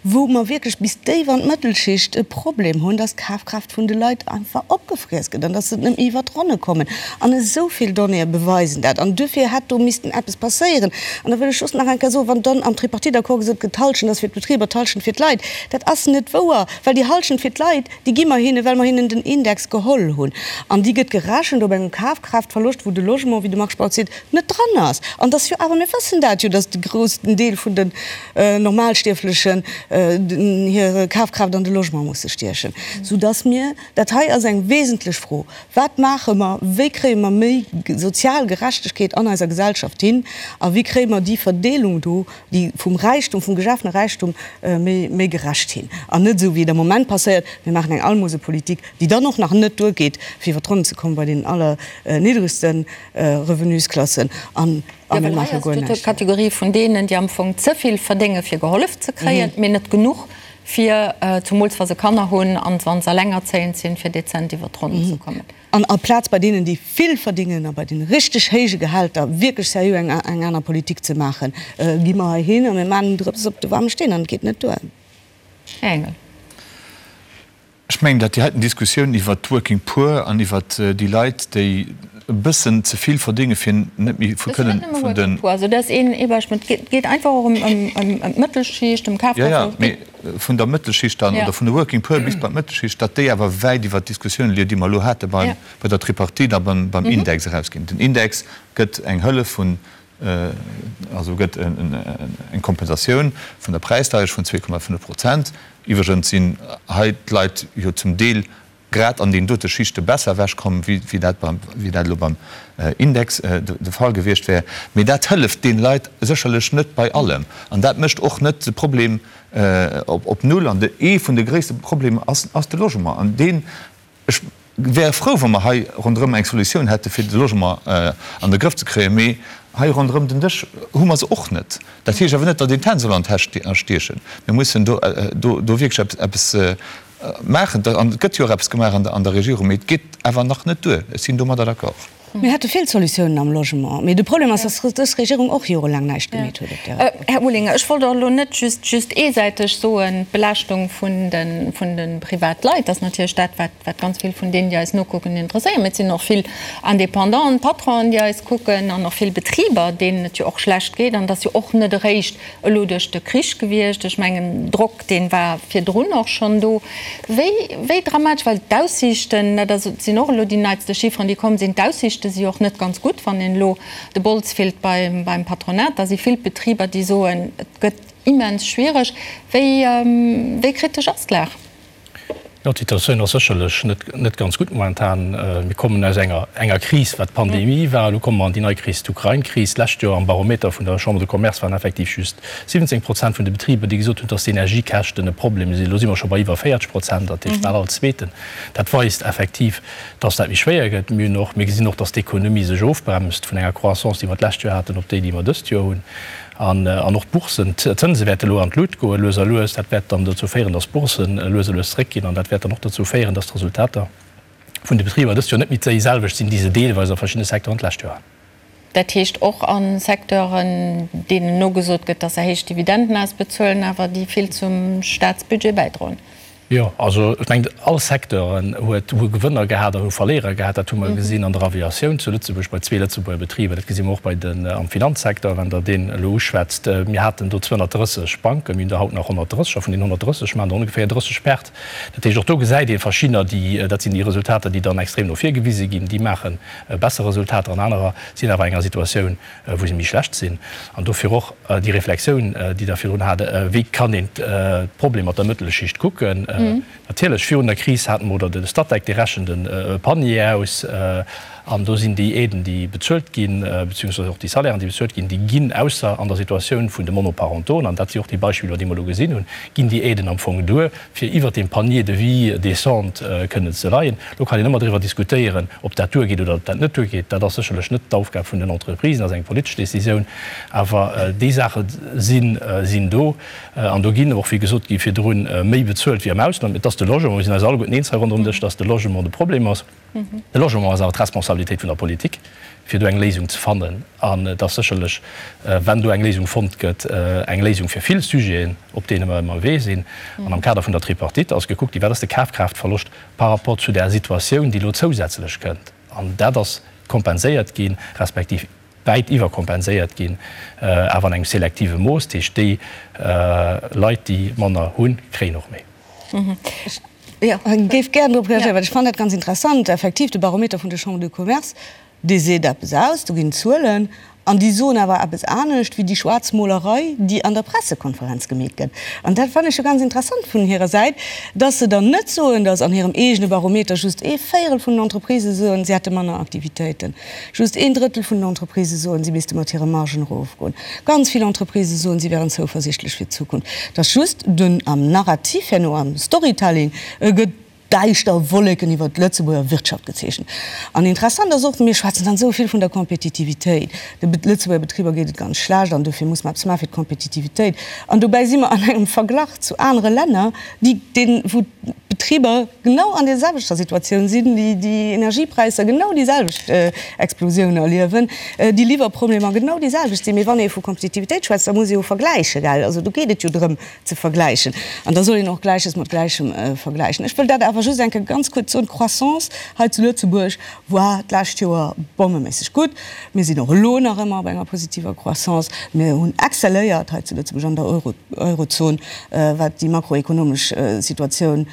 wou mer wierklech bis déif an d'Mëttelschicht e Problem hunn, dass d'Kafkraaft vun de Leit einfach opgefriess gëtt an dass se net méi iwwert d'Ronne kommen? An esou vill Donnéeë beweisen dat. An duerfir hätt do missten eppes passéieren. An da wëll ech just nach eng Kéier soen, wann dann am Tripartite-Accord gesot gëtt, d'Halschent ass fir d'Betriber, d'Halschent fir d'Leit, Dat ass net wouer, well déi Halschent fir d'Leit, déi gi mer hinnen, well mer hinnen den Index geholl hunn. An déi gëtt gerechent op engem Kafkraaftverloscht, wou de Logement, wéi de Marc Spautz seet, net dran ass. An dass jo awer, mir wëssen dat jo, dass de groussen Deel vun den Normalstierflechen hir Kafkraaft an de Logement musse stiechen, soudass mir, dat hei ass eng wesentlech Fro, Wat maache mer, wéi kréie mer méi sozial Gerechtegkeet an eiser Gesellschaft hin a wéi kréie mer déi Verdeelung do, déi vum Räichtum, vum geschafene Räichtum méi, méi gerecht hin an net esou wéi et am Moment passéiert, mir maachen eng Almosepolitik, déi dann och nach net duergeet, fir iwwer d'Ronnen ze kommen bei den allerniddregste Revenusklassen an a mir maache guer näischt. D'Kategorie vun deenen, déi am Fong ze vill verdénge fir gehollef ze kréien, mee net genuch fir, zumools wa se Kanner hunn an wa se elengerzéiend sinn, fir dezent iwwer d'Ronnen ze kommen. An aplaz bei deenen, déi vill verdingen a bei deene richteg héije Gehälter wierklech seriö eng eng aner Politik ze maachen, gi mer hei hin a mir maachen en Drëps op de waarme Steen an et geet net duer. Här Engel. Ech mengen, datt déi heiten Diskussioun iwwert d'Working Poor an iwwert déi Leit, déi e bëssen ze vill verdénge fir net méi vu kënnen vun den. Also dat ass een ee Beispill. Et geet einfach och ëm d'Mëttelschicht, ëm Kafkraaft. Jo, jo, mee vun der Mëttelschicht dann oder vun de Working Poor bis bei d'Mëttelschicht, datt déi awer wäit iwwert d'Diskussioun leien, déi mer elo hate bei der Tripartite a beim Index erausginn. Den Index gëtt eng Hëllef vun, also gëtt eng Kompensatioun vun der Präisdeierecht vun 2,5 Prozent. Iwwregens sinn hei d'Leit jo zum Deel grad an deenen dote Schichte besser ewechkomm, wéi dat beim, wéi dat elo beim Index de Fall gewiescht wär. Mee dat hëlleft deene Leit sécherlech net bei allem. An dat mécht och net de Problem op Null. An ee vun de gréisste Problemer ass, ass de Logement. An deen, ech wär frou, wa mer hei ronderëm eng Solutioun hätte fir de Logement an de Grëff ze kréien. Mee hei ronderëm den Dësch hu mer se och net. Dat heescht awer net, datt een d'Hänn soll an d'Täsch stiechen. Mir mussen do, do wierklech eppes maachen. An et gëtt jo och eppes gemaach an der Regierung, mee et geet awer nach net duer. Ech sinn domadder d'accord. Mir hätte vill Solutiounen am Logement, mee de Problem ass, dass dës Regierung och jorelaang näischt gemeet huet op där. Här Olinger, ech wollt och elo net just just eesäiteg soen, d'Belaaschtung vun de vun de Privatleit ass natierlech dat, wat wat ganz vill vun deenen, déi eis nokucken, interesséiert. Mee et sinn och vill Indépendanten, Patronen, déi eis kucken an och vill Betriber, deenen et jo och schlecht geet. An et ass jo och net eréischt elo duerch de Krich gewiescht. Ech mengen, Drock, dee war virdrun och schonn do. Wéi, wéi dramatesch, well d'Aussiichten, dat ass, sinn och elo déi neitste Chifferen, déi komm sinn, d'Aussiichte si jo och net ganz gutt. Wann een elo de Bols fillt beim, beim Patronat, da si vill Betriber, déi soen, et gëtt immens schwiereg. Wéi, wéi kritesch ass d'Lag? Jo, d'Situatioun ass sécherlech net, net ganz gutt momentan. Mir kommen aus enger, enger Kris, wat d'Pandemie war. Elo komme mer an déi nei Kris, d'Ukrain-Kris. D'lescht Joer am Barometer vun der Chambre de Commerce waren effektiv just 17 Prozent vun de Betriber, déi gesot hunn, dass d'Energiekäschten e Problem sinn. Elo si mer scho bei iwwer 40 Prozent, dat heescht bal all Zweeten. Dat weist effektiv, dass dat méi schwéier gëtt. Mir hunn och, mir gesinn och, dass d'Ekonomie sech ofbremst vun enger Croissance, déi mer d'lescht Joer haten, op déi, déi mer dëst Joer hunn. An och d'Boursen, d'Zënse wäerte elo an d'Lut goen, lues a lues. Dat wäert dann dozou féieren, dass d'Boursen lues a lues zeréckginn an dat wäert dann och dozou féieren, dass d'Resultater vun de Betriber dëst Joer net méi déiselwecht sinn, déi se deelweis a verschiddene Secteuren d'lescht Joer haten. Dat heescht och a Secteuren, deenen nogesot gëtt, dass se héich Dividenden ausbezuelen, awer déi vill zum Staatsbudget bäidroen. Jo, also ech mengen, all Secteuren huet, hu Gewënner gehat an hu Verléierer gehat. Dat hu mer gesinn an der Aviatioun zu Lëtzebuerg bei zwee Lëtzebuerger Betriber. Dat gesi mer och bei den, am Finanzsecteur, wann Der deen elo uschwätzt. Mir haten do 230 Banken, mir hunn der haut nach 130 a vun deenen 130 maachen der ongeféier 30 Perte. Dat heescht, och do gesäit ee verschiddener, déi, dat sinn déi Resultater, déi dann extrem no vir gewise ginn, déi maache besser Resultater an anerer sinn awer enger Situatioun, wou se méi schlecht sinn. An dofir och déi Reflexioun, déi Der virdrun hat, Wéi kann een d'Problem mat der Mëttelschicht kucken? Natierlech, virun der Kris hate mer, oder de Statec, dee rechent e Panier aus, an do sinn déi Aiden, déi bezuelt ginn, beziehungsweise och déi Salairen, déi bezuelt ginn, déi ginn, ausser an der Situatioun vun de Monoparentoen, an dat si och déi Beispiller, déi mer elo gesinn hunn, ginn déi Aiden am Fong duer, fir iwwert deem Panier de vie décent kënnen ze leien. Elo kann een ëmmer driwwer diskutéieren, ob dat duergeet oder ob dat net duergeet. Dat ass sécherlech net d'Aufgab vun den Entreprisen, dat ass eng politesch Décisioun. Awer déi Saache sinn do. An do ginn och, wéi gesot gi virdrun, méi bezuelt wéi am Ausland. Et ass de Logement, mir sinn eis alleguerten eens hei ronderëm Dësch, dass de Logement de Problem ass. De Logement ass awer d'Responsabilitéit vun der Politik, fir do eng Léisung ze fannen. An et ass sécherlech, wenn do eng Léisung fonnt gëtt, eng Léisung fir vill Sujeten, op deene mer ënnerwee sinn. An am Kader vun der Tripartite ass gekuckt ginn, wat ass de Kafkraaftverloscht par rapport zu där Situatioun, déi elo zousätzlech kënnt. An dat ass kompenséiert ginn, respektiv wäit iwwerkompenséiert ginn, awer an engem selektive Mooss. Dat heescht, déi Leit, déi manner hunn, kréien och méi. Ech géif gären drop reagéieren, well ech fannen dat ganz interessant. Effektiv, de Barometer vun der Chambre de Commerce, dee seet eppes aus, do ginn Zuelen, an déi soen awer eppes anescht wéi déi Schwaarzmolerei, déi an der Pressekonferenz gemeet gëtt. An dat fannen ech jo ganz interessant vun hirer Säit, dass se dann net soen, dass an hirem eegene Barometer just ee Véierel vun den Entreprisë soen, si hätte manner Aktivitéiten. Just een Drëttel vun den Entreprisë soen, si misste mat hire Margen erofgoen. Ganz vill Entreprisë soen, si wären zouversichtlech fir d'Zukunft. Et ass just dunn am Narrativ herno, am Storytelling gëtt däischter Wolleken iwwert d'Lëtzebuerger Wirtschaft gezeechent. An interessant ass och, mir schwätzen dann esou vill vun der Kompetitivitéit, de Lëtzebuerger Betriber geet et ganz schlecht an dofir muss mer eppes maache fir d'Kompetitivitéit. An dobäi si mer an engem Verglach zu anere Länner, déi, deen, wou d'Betriber genau an der selwechter Situatioun sinn, déi déi Energiepräisser genau déi selwecht Explosioun erliewen, déi Liwwerproblemer genau déi selwecht sinn. Mee wann ee vu Kompetitivitéit schwätzt, da muss ee jo vergläichen, gell? Also do geet et jo drëm ze vergläichen an da soll een och Gläiches mat Gläichem vergläichen. Ech wëll dat awer just eng Kéier ganz kuerz soen, D'Croissance hei zu Lëtzebuerg war d'lescht Joer bommeméisseg gutt. Mir sinn och elo nach ëmmer op enger positiver Croissance. Mir hunn excelléiert hei zu Lëtzebuerg an der Eurozon, wat déi makroekonomesch Situatioun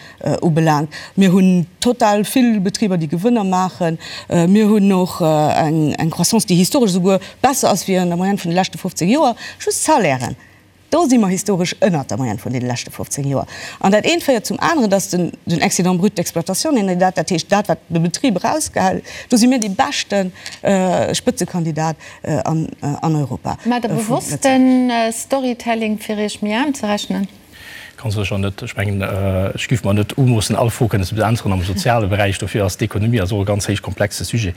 ubelaangt. Mir hunn total vill Betriber, déi Gewënner maachen. Mir hunn och eng Croissance, déi historesch esouguer besser ass wéi an der Moyenne vun de leschte 15 Joer. Just d'Salairen, do si mer historesch ënnert der Moyenne vun deene leschte 15 Joer. An dat eent féiert zum aneren, dass den Excédent brut d'exploitation, nennt een dat, dat heescht dat, wat de Betrib erausgehält, do si mir dee beschte Spëtzekandidat an Europa. Maacht Der bewosst de Storytelling, fir Iech méi aarm ze rechnen? Kann sécher net. Ech mengen, ech géif mer net umoossen, all Fro kënnen ze beäntweren am soziale Beräich. Dofir ass d'Ekonomie ass och e ganz héich komplexe Sujet.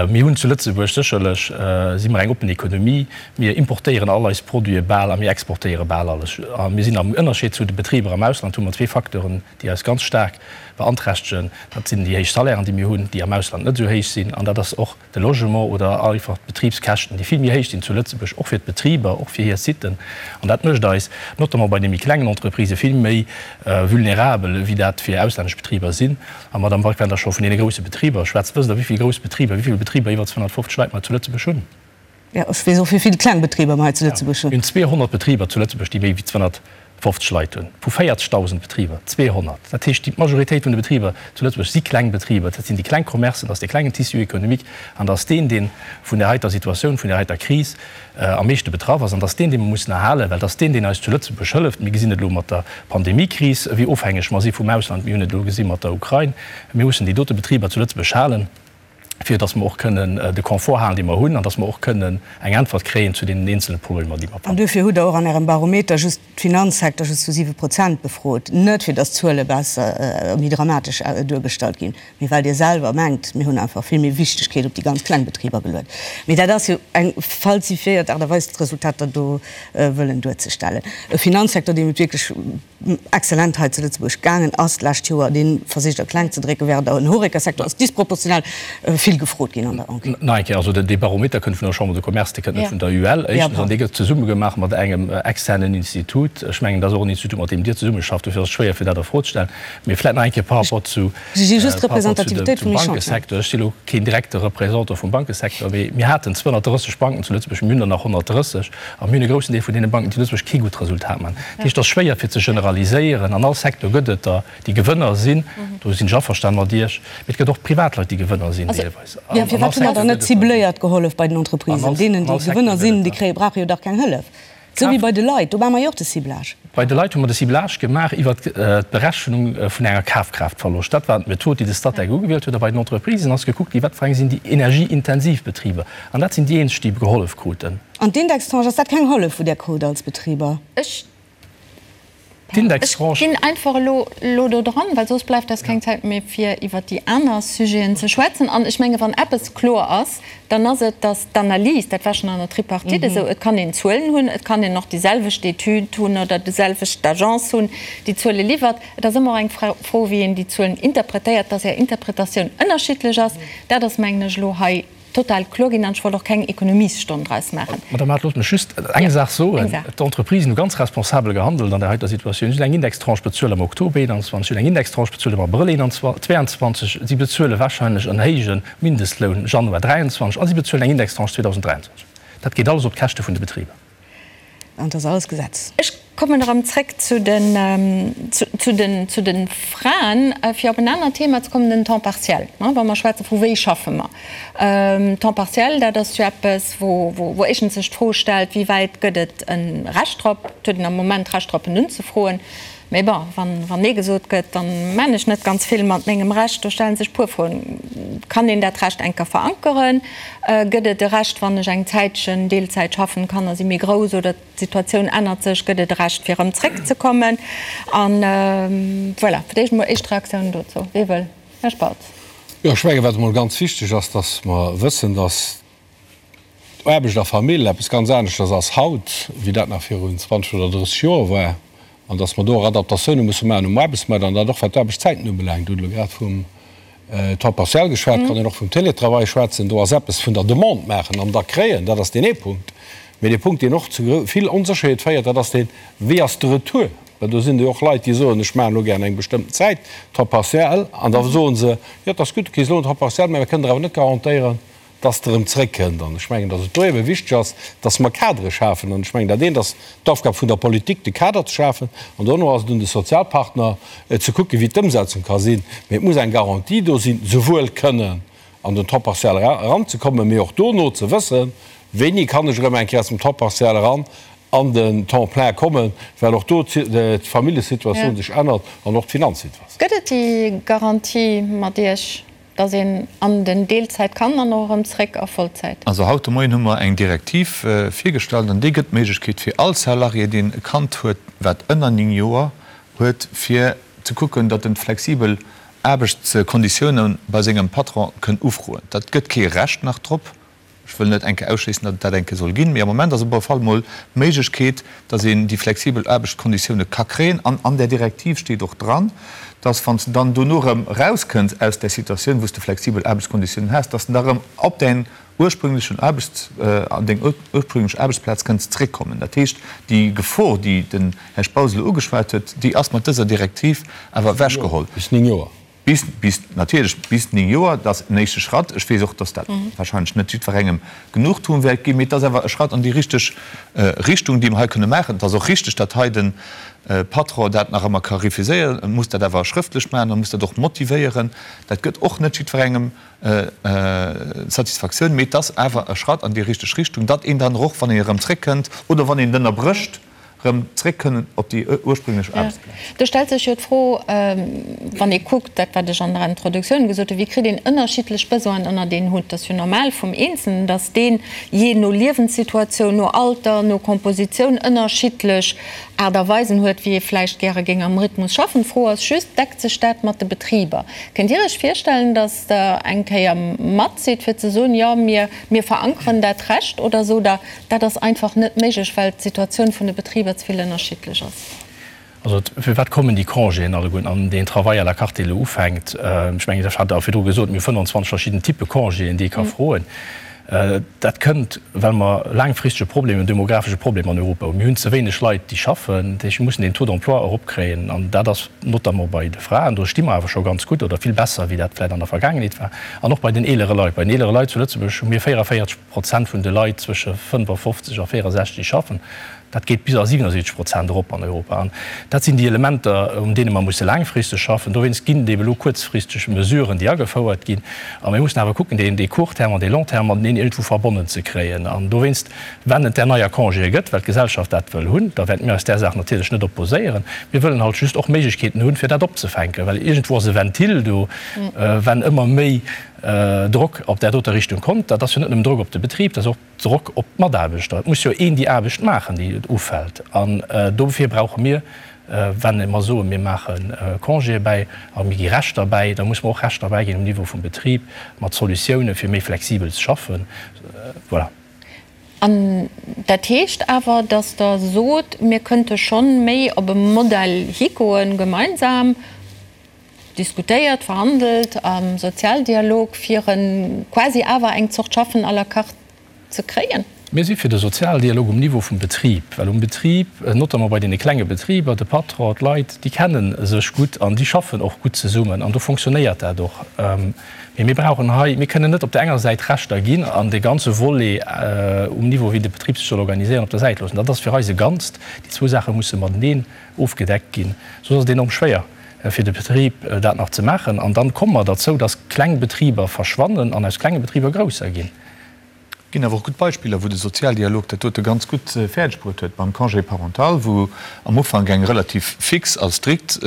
Mir hunn zu Lëtzebuerg sécherlech, si mer eng oppen Ekonomie. Mir importéieren all eis Produite bal a mir exportéiere bal alles. A mir sinn am Ënnerscheed zu de Betriber am Ausland, hu mer zwee Facteuren, déi eis ganz staark beanträchtegen. Dat sinn déi héich Salairen, déi mir hunn, déi am Ausland net esou héich sinn. An dat ass och de Logement oder einfach d'Betribskäschten, déi vill méi héich sinn zu Lëtzebuerg, och fir d'Betriber, och fir hir Siten. An dat mécht eis, notamment bei de méi klengen Entreprisë, vill méi vulnerabel, wéi dat fir auslännesch Betriber sinn. A Madame Walk, wann Der scho vun deene grousse Betriber schwätzt, wësst Der, wéi vill grouss Betriber, wéi vill Betriber iwwer 250 Leit mer zu Lëtzebuerg hunn? Jo, ech weess och, wéi vill kleng Betriber mer hei zu Lëtzebuerg hunn. Mir hunn 200 Betriber zu Lëtzebuerg, déi méi wéi 250 Leit hunn. Vu 40.000 Betriber 200. Dat heescht, déi Majoritéit vun de Betriber zu Lëtzebuerg si kleng Betriber. Dat sinn déi kleng Commercen, dat ass dee klengen Tissu économique an dat ass deen, dee vun där heiter Situatioun, vun där heiter Kris am meeschte betraff ass. An dat ass deen, dee mer mussen erhalen, well dat ass deen, deen eis zu Lëtzebuerg hëlleft. Mir gesinn et elo mat der Pandemiekris, wéi ofhängeg mer si vum Ausland. Mir hunn et elo gesi mat der Ukrain. Mir mussen déi dote Betriber zu Lëtzebuerg halen. fir datt mer och kënnen de Confort halen, dee mer hunn, an datt mer och kënnen eng Äntwert kréien zu deenen eenzele Problemer, déi mer. An duerfir hutt Der och an Ärem Barometer just d'Finanzsecteur just zu 7 Prozent befrot, net fir datt d'Zuele besser, méi dramatesch duergestallt ginn, mee well Dir selwer mengt, mir hunn einfach vill méi Wichtegkeet op déi ganz kleng Betriber geluet. Mee dat ass jo eng falsifiéiert Aart a Weis, d'Resultater do wëllen duerzestellen. E Finanzsecteur, deem et wierklech excellent hei zu Lëtzebuerg gaangen ass d'lescht Joer, dee versicht a kleng ze drécken, während den Horeca-Secteur ass disproportional vill gefrot ginn an der Enquête. Nach eng Kéier, also dee Barometer kënnt vun der Chambre de Commerce, dee kënnt net vun der UEL, éischtens, an dee gëtt zesumme gemaach mat engem externen Institut. Ech mengen, dat ass och en Institut, mat deem Dir zesummeschafft, dofir ass et schwéier fir dat a Fro ze stellen. Mee vläicht nach eng Kéier par rapport zu, par rapport zu dem, zum Bankesecteur. Ech si elo keen direkte Représentant vum Bankesecteur, mee mir haten 230 Banken zu Lëtzebuerg, mir hunn der nach 130. A mir hunn e groussen Deel vun deene Banken, déi zu Lëtzebuerg kee gutt Resultat maachen. Dat heescht, et ass schwéier fir ze generaliséieren. An all Secteur gëtt et der, déi Gewënner sinn. Do sinn ech averstanen mat Iech. Mee et gëtt och Privatleit, déi Gewënner sinn deelweis. An all Firwat hu mer dann net cibléiert gehollef bei den Entreprisen? Deenen, déi Gewënner sinn, déi kréie brauche jo dach keng Hëllef. Esou wéi bei de Leit, do maache mer jo och de Ciblage. Bei de Leit hu mer de Ciblage gemaach iwwert d'Berechnung vun enger Kafkraaftverloscht. Dat war d'Method, déi de Statec ugewielt huet. A bei den Entreprisen ass gekuckt ginn, wat fir eng sinn déi energieintensiv Betriber. An dat sinn déi eenzeg, déi gehollef kruten. An d'Indextranche, ass dat keng Hëllef, wou Der krut als Betriber? Ech ginn einfach elo elo do dran, well soss bleift eis keng Zäit méi, fir iwwert déi aner Sujeten ze schwätzen. An ech menge wann eppes kloer ass, dann ass et, datt d'Analys, dat war schonn an der Tripartite esou, et kann een Zuelen hunn, et kann een och déi selwecht Etüd hunn oder déi selwecht Agence hunn, déi Zuele liwwert. Et ass ëmmer och eng Fro, wéi een déi Zuelen interpretéiert. Datt Är Interpretatioun ënnerschiddlech ass, dat ass, mengen ech, elo hei total kloer ginn an ech wollt och keng Ekonomiesstonn draus maachen. Madame Mart, loosst mech just eng Saach soen. D'Entreprisen hu ganz responsabel gehandelt an där heiter Situatioun. Si hunn eng Indextranche bezuelt am Oktober 21, si hunn eng Indextranche bezuelt am Abrëll 22, si bezuele wahrscheinlech en héije Mindestloun Januar 23 a si bezuelen eng Indextranche 2023. Dat geet alles op d'Käschte vun de Betriber. An et ass alles Gesetz. Ech kommen erëm zréck zu den, zu den, zu de Fraen, fir op en anert Thema ze kommen, den Temps partiel. Wa mer schwätze vu wéi schaffe mer. Temps partiel, dat ass jo eppes, wou, wou éischtens sech d'Fro stellt, wéi wäit gëtt et e Recht drop? Et huet een am Moment d'Recht drop, en unzefroen. Mee bon, wann, wann Nee gesot gëtt, dann maan ech net ganz vill mat mengem Recht. Do stellen sech puer Froen. Kann een dat Recht enker verankeren? Gëtt et e Recht, wann ech eng Zäitchen Deelzäit schaffen, d'Kanner si méi grouss oder d'Situatioun ännert sech, gëtt et e Recht fir erëm zréckzekommen? An voilà, fir d'éischt emol éischt Reaktiounen dozou. Wee wëll? Här Spautz. Jo, ech mengen, wat emol ganz wichteg ass, dass mer wëssen, dass Aarbecht a Famill eppes ganz aneschters ass haut, wéi dat nach virun 20 oder 30 Joer war, an dass mer do och Adaptatioune musse maachen um Aarbechtsmaart, an dat och wat d'Aarbechtszäiten ubelaangt. Dir hutt elo grad vum Temps partiel geschwat, et kann een och vum Télétravail schwätzen. Do ass eppes vun der Demande maachen an da kréien, dat ass deen ee Punkt. Mee dee Punkt, deen och zu vill Onsécherheet féiert, dat ass deen, Wéi ass de Retour? Well do sinn jo och Leit, déi soen, ech maachen elo gären eng bestëmmten Zäit Temps partiel, an da soe se, jo, et ass gutt, du kriss elo en Temps partiel, mä mir kënnen der awer net garantéieren, dass Der erëm zréckkënnt. An ech mengen, dass et do ebe wichteg ass, dass mer Kadere schafen. An ech mengen, dat eent ass d'Aufgab vun der Politik, de Kader ze schafen, an dono ass et un de Sozialpartner, ze kucken, wéi d'Ëmsetzung ka sinn. Mee et muss eng Garantie do sinn, souwuel kënnen an den Temps partiel eranzekommen, mee och dono ze wëssen, wéini kann ech erëm eng Kéier aus dem Temps partiel eran an den Temps plein kommen, well och do d'Familljesituatioun sech ännert an och d'Finanzsituatioun. Gëtt et déi Garantie mat Iech? Dass een an den Deelzäit kann an och erëm zréck a Vollzäit. Also haut de Moien hu mer eng Direktiv virgestallt an déi gëtt d'Méiglechkeet fir all Salarié, deen e Kand huet, wat ënner 9 Joer. huet fir ze kucken, datt en flexibel Aarbechtskonditioune bei sengem Patron kënn ufroen. Dat gëtt kee Recht nach drop. Ech wëll net eng Kéier ausschléissen, datt et dat eng Kéier soll ginn, mee am Moment ass op alle Fall mol d'Méiglechkeet, datt een déi flexibel Aarbechtskonditioune ka kréien. An an där Direktiv steet och dran, datt wann s de dann dono erëm erauskënns aus där Situatioun, wou s de flexibel Aarbechtskonditiounen has, datt s de da erëm op däin ursprünglechen Aarbechts-, an deng ursprünglech Aarbechtsplaz kënns zréckkommen. Dat heescht, déi Gefor, déi den Här Spautz elo ugeschwat huet, déi ass mat dëser Direktiv awer ewechgeholl. Bis 9 Joer. Bis, bis, natierlech bis 9 Joer. Dat ass en éischte Schratt. Ech weess och, dass dat wahrscheinlech net jiddwerengem Genugtuung wäert ginn, mee et ass awer e Schratt an déi richteg Richtung, déi mer hei kënne maachen. Et ass och richteg, datt hei de Patron dat nach ëmmer ka refuséieren. E muss dat awer schrëftlech maachen, e muss dat och motivéieren. Dat gëtt och net jiddwerengem Satisfaktioun, mee et ass awer e Schratt an déi richteg Richtung, datt een dann och, wann een erëm zréckkënnt oder wann een et ënnerbrécht, erëm zréck kënnen op déi ursprünglech Aarbechtsplaz. Do stellt sech jo d'Fro, wann ee kuckt, dat wat ech an der Introduktioun gesot hunn, wéi kritt een ënnerschiddlech Besoinen ënnert een Hutt? Et ass jo normal vum Eenzelnen, datt deen jee no Liewenssituatioun, no Alter, no Kompositioun ënnerschiddlech Aart a Weisen huet, wéi ee vläicht gäre géing am Rhythmus schaffen. D'Fro ass just, Deckt sech dat mat de Betriber? Kënnt Dir Iech virstellen, datt Der eng Kéier mat sidd, fir ze soen, Jo, mir, mir verankeren dat Recht? Oder sot Der, dat ass einfach net méiglech, well d'Situatioun vun de Betriber ze vill ënnerschiddlech ass? Also, firwat kommen déi Congéen alleguerten an deen Travail à la carte, dee elo ufänkt? Ech mengen, ech hat der virdru gesot, mir hu 25 verschidden Typpe Congéen, déi ee ka froen. Dat kënnt, well mer laangfristege Problem, en demographesche Problem an Europa hunn. Mir hunn ze wéineg Leit, déi schaffen. Dat heescht, mir mussen den Taux d'emploi eropkréien. An dat ass notamment bei de Fraen, do sti mer awer scho ganz gutt oder vill besser, wéi dat vläicht an der Vergaangenheet war. An och bei den eelere Leit. Bei den eelere Leit zu Lëtzebuerg hu mir 44 Prozent vun de Leit zwësche 55 a 64, déi schaffen. Dat geet bis a 77 Prozent erop an Europa. An dat sinn déi Elementer, un deene mer musse laangfristeg schaffen. Dowéinst ginn et ebe elo kuerzfristeg Mesuren, déi agefouert ginn. A mir mussen awer kucken, deen dee Court terme an dee Long terme mateneen iergendwou verbonnen ze kréien. An dowéinst, wenn et där neier Congéë gëtt, well d'Gesellschaft dat wëll hunn, da wäerte mir eis där Saach natierlech net opposéieren. Mir wëllen halt just och Méiglechkeeten hunn, fir dat opzefänken, well iergendwou ass e Ventil do, wenn ëmmer méi Drock op där doter Richtung kommt. Dat ass jo net nëmmen Drock op de Betrib, dat ass och Drock op d'Mataarbechter. Et muss jo een déi Aarbecht maachen, déi ufält. An dofir brauche mir, wenn mer soen, mir maache Congéë bäi a mir gi Rechter bäi, da muss mer och Rechter bäiginn um Niveau vum Betrib mat Solutioune fir méi flexibel ze schaffen. Voilà. An dat heescht awer, datt Der sot, mir kënnte schonn méi op e Modell higoen, gemeinsam, diskutéiert, verhandelt am Sozialdialog, fir e quasi awer eng Zort Schaffen à la carte ze kréien? Mir si fir de Sozialdialog um Niveau vum Betrib, well um Betrib, notamment bei deene klenge Betriber, de Patron, d'Leit, déi kenne sech gutt an déi schaffen och gutt zesummen an do fonctionnéiert dat och. Mee mir brauchen hei, mir kënnen net op der enger Säit Rechter ginn an dee ganze Volet um Niveau, wéi de Betrib sech soll organiséieren, op der Säit loossen. Dat ass fir eis e Ganzt. Déi zwou Saache musse mateneen ofgedeckt ginn, soss ass et enorm schwéier. fir de Betrib dat nach ze maachen. An dann komme mer derzou, dass kleng Betriber verschwannen an aus klenge Betriber grousser ginn. Et ginn awer och gutt Beispiller, wou de Sozialdialog dat dote ganz gutt fäerdeg bruet huet, beim Congé parental, wou am Ufank eng relativ fix a strikt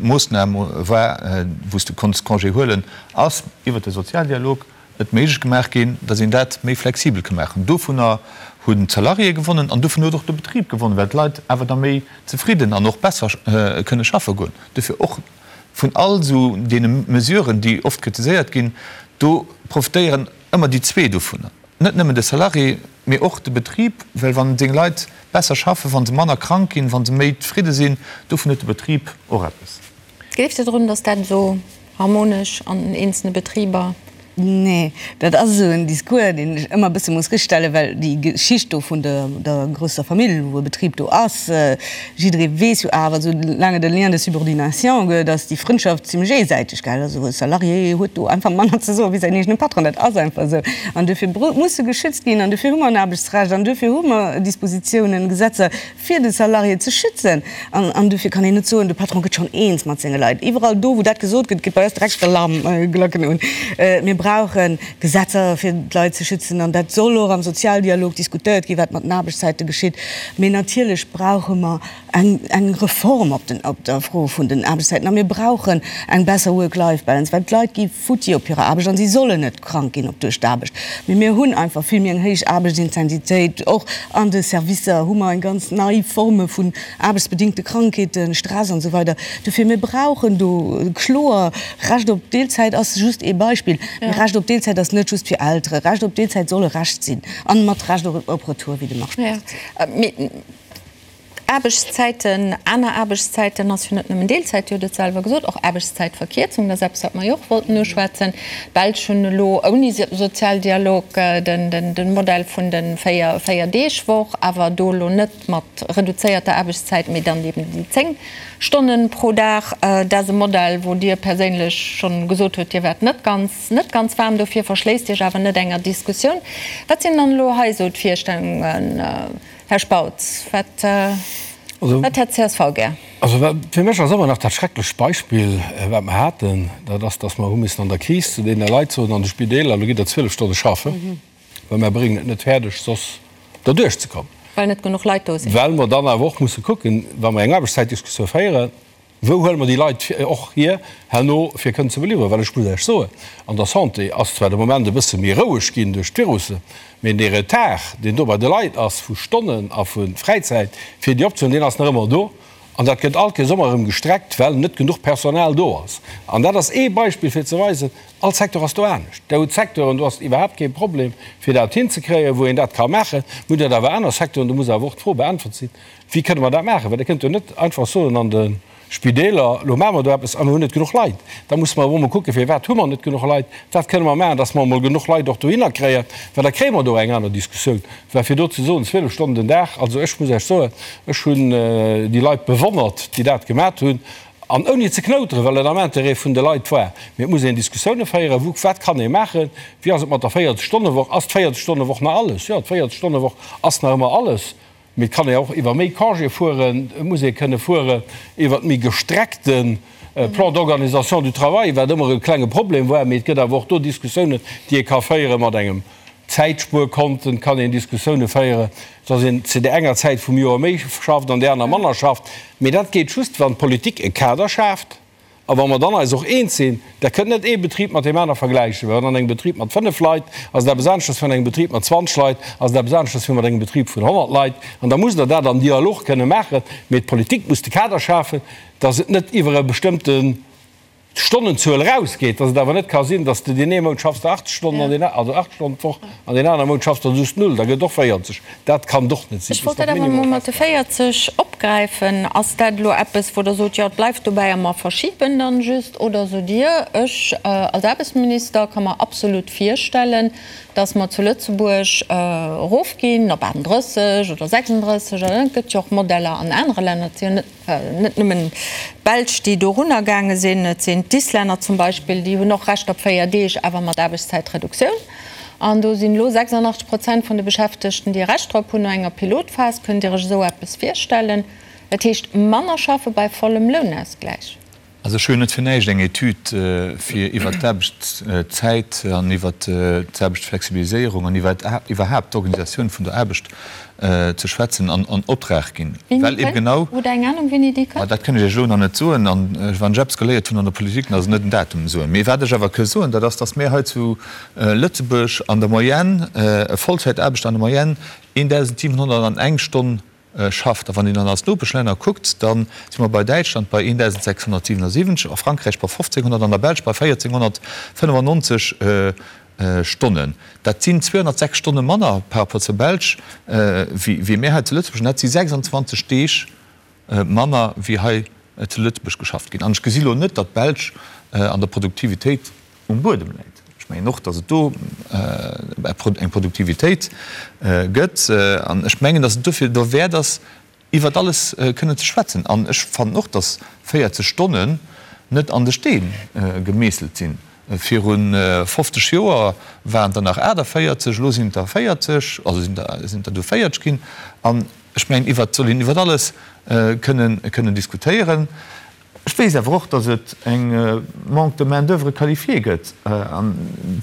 Moossnam war, wou s de konns Congé huelen, ass iwwert de Sozialdialog et méiglech gemaach ginn, datt een dat méi flexibel ka maachen. Dovunner hunn d'Salariéë gewonnen an dovun huet och de Betrib gewonnen, well d'Leit awer da méi zefridden an och besser kënne schaffe goen. Dofir och vun all esou deene Mesuren, déi oft kritiséiert ginn, do profitéieren ëmmer déi zwee dovunner, net nëmmen de Salarié, mee och de Betrib, well wa seng Leit besser schaffen, wa se manner krank ginn, wa se méi zefridde sinn, dovun huet de Betrib och eppes. Gleeft Dir drun, datt dat esou harmonesch an den eenzelne Betriber? Nee, dat ass esou en Discours, deen ech ëmmer e bësse muss richtstellen, well déi Geschicht do vun der grousser Famill, wou e Betrib do ass, jidderee weess jo awer, esou laang et e Lien de subordination gëtt, ass déi Frëndschaft zimlech eesäiteg, gell. Also e Salarié huet do einfach manner ze soen wéi säin eegene Patron, dat ass einfach esou. An dofir muss e geschützt ginn an dofir hu mer en Aarbechtsrecht an dofir hu mer Dispositiounen, Gesetzer, fir de Salarié ze schützen. An dofir kann een net soen, de Patron gëtt schonn eens mat senge Leit. Iwwerall do, wou dat gesot gëtt, geet bei eis direkt d'Alarmglacken un. Mir brauchen. brauche Gesetzer, fir d'Leit ze schützen, an dat soll och am Sozialdialog diskutéiert ginn, wat mat den Aarbechtszäite geschitt. Mee natierlech brauche mer eng Reform op der Fro vun den Aarbechtszäiten a mir brauchen eng besser Work-Life-Balance, well d'Leit gi futti op hirer Aarbecht an si sollen net krank ginn op duerch d'Aarbecht. Mee mir hunn einfach vill méi eng héich Aarbechtsintensitéit. Och an de Servicer hu mer eng ganz nei Forme vun aarbechtsbedingte Krankheeten, Stress an esou weider. Dofir, mir brauchen do kloer Recht op Deelzäit ass just ee Beispill. Mee Recht op Deelzäit ass net just fir Eltere. Recht op Deelzäit soll e Recht sinn an mat Recht op Retour, wéi de Marc Spautz et seet. Aarbechtszäiten, aner Aarbechtszäiten ass jo net nëmmen Deelzäit, Dir hutt et selwer gesot, och Aarbechtszäitverkierzung, dat ass eppes, wat mer jo och wollten uschwätzen. D'Belsch hunn elo ouni Sozialdialog de Modell vun de Véierdeegwoch, awer do elo net mat reduzéierter Aarbechtszäit, mee dann eben déi 10 Stonnen pro Dag. Dat ass e Modell, wou Dir perséinlech schonn gesot hutt, Dir waart net ganz, net ganz waarm dofir, verschléisst Iech awer net enger Diskussioun. Wat sinn dann elo hei esou d'Virstellungen? Här Spautz, wat hätt csv gär? Also fir mech ass ëmmer nach dat schrecklecht Beispill, wat mer haten, dat ass, datt mer hu missen an der Kris zu deene Leit soen an de Spideeler, Elo gitt Der 12 Stonne schaffen, well mer bréngen et net fäerdeg, soss derduerch ze kommen. Well net genuch Leit do sinn. Well mer dann awer och musse kucken, wa mer eng Aarbechtszäitdiskussioun féieren, Wou huele mer déi Leit och hier herno, fir kënnen ze beliwweren? Well ech muss Iech soen, an der Santé ass zwar de Moment e bësse méi roueg ginn duerch d'Virusse, mee dee Retard, deen do bei de Leit ass vu Stonnen a vu Fräizäit, fir déi opzehuelen, deen ass nach ëmmer do. An dat gëtt all Kéiers ëmmer erëm gestreckt, well net genuch Personal do ass. An dat ass ee Beispill, fir ze weisen, All Secteur ass do anescht. Der hutt Secteuren, do ass et iwwerhaapt kee Problem, fir dat hinzekréien, wou een dat ka maachen. Mir hunn dat awer aner Secteuren, do muss awer och d'Fro beäntwert sinn, Wéi kënne mer dat maachen? Well Der kënnt jo net einfach soen an de Spideeler, Elo maache mer do eppes a mir hunn net genuch Leit. Da musse mer awer emol kucken, Firwat hu mer net genuch Leit? Wat kënne mer maachen, dass mer emol genuch Leit och dohinner kréien? Well da kréie mer do eng aner Diskussioun. Well fir do ze soen, 12 Stonnen den Dag, also ech muss Iech soen, ech hunn déi Leit bewonnert, déi dat gemat hunn, an ouni ze knouteren, well et am Intérêt vun de Leit war. Mee et muss een Diskussioune féieren, wou, wat kann ee maachen, wéi ass et mat der 40-Stonne-Woch, ass d'Véierzeg-Stonne-Woch nach alles? Jo, d'Véierzeg-Stonne-Woch ass nach ëmmer alles. Mee et kann ee och iwwer méi Congé fueren, et muss ee kënne fueren iwwer méi gestreckte Plan d'organisation du travail, wat ëmmer e klenge Problem war. Mee et gëtt awer och do Diskussiounen, déi ee ka féiere mat engem Zäitspuerkonten. Et kann een Diskussioune féieren, dass een zu där enger Zäit vum Joer méi schafft an där aner manner schafft. Mee dat geet just, wann d'Politik e Kader schaaft. A wa mer dann eis och eens sinn, Der kënnt net ee Betrib mat deem aner vergläichen, well an engem Betrib mat 5 Leit ass et eppes aneschters wéi an engem Betrib mat 20 Leit, ass et eppes aneschters wéi mat engem Betrib vun 100 Leit. An da musst Der dat am Dialog kënne maachen. Mee d'Politik muss de Kader schafen, dass et net iwwer e bestëmmte Stonnenzuel erausgeet, dass et awer net ka sinn, dass de deen ee Mount schaffs de 80 Stonnen an deen, also 8 Stonnen d'Woch, an deen anere Mount schaffs de just null, da gëtt et och 40. Dat kann et och net sinn. Ech wollt dat awer emol mat de 40 opgräifen. Ass dat elo eppes, wou Der sot, jo, et bleift dobäi a mer verschiben dann just? Oder sot Dir, ech als Aarbechtsminister ka mer absolut virstellen, datt mer zu Lëtzebuerg erofginn op 38 oder 36 oder et gëtt jo och Modeller an anere Länner, et si jo net Net nëmmen d'Belsch, déi dorunner gaange sinn, et sinn d'Islänner zum Beispill, déi hunn och Recht op 4 Deeg, awer mat Aarbechtszäitreduktioun. An do sinn elo 86 Prozent vun de Beschäftegten, déi e Recht drop hunn, no enger Pilotphas. Kënnt Dir Iech esou eppes virstellen? Dat heescht manner schaffe bei vollem Lounausgläich. Also ech hu jo net fir näischt eng Etüd fir iwwert d'Aarbechtszäit an iwwert d'Aarbechtsflexibiliséierung an iwwer iwwerhaapt d'Organisatioun vun der Aarbecht ze schwätzen an Optrag ginn, well eben genau. Hutt Der eng Anung wéini déi kënnt? Dat kënn ech Iech elo nach net soen. An wann ech eppes geléiert hunn an der Politik, dann ass et net en Datum soen. Mee wat ech awer ke soen, dat ass, datt mir hei zu Lëtzebuerg an der Moyenne, e Vollzäitaarbechter an der Moyenne 1.701 Stonn schafft. A wann een dann als Nopeschlänner kuckt, da si mer bei Däitschland bei 1.677, a Frankräich bei 1.500, an der Belsch bei 1.495 Stonnen. Dat sinn 206 Stonne manner par rapport zur Belsch wéi mir hei zu Lëtzebuerg. An dat si 26 Deeg manner wéi hei zu Lëtzebuerg geschafft ginn. An ech gesi lo net, datt d'Belsch an der Produktivitéit um Buedem läit. Ech mengen och, datt et do eng Produktivitéit gëtt. An ech mengen, datt et dofir derwäert ass, iwwert alles kënnen ze schwätzen. An ech fannen och, datt 40 Stonnen net an de Steen gemeesselt sinn. Viru 50 Joer waren et der nach 48, elo sinn et der 40, also sinn der du 40 ginn. An ech mengen, iwwert soll een iwwert alles kënnen diskutéieren. Ech weess awer och, datt et eng Manque de main-d'oeuvre qualifiée gëtt. An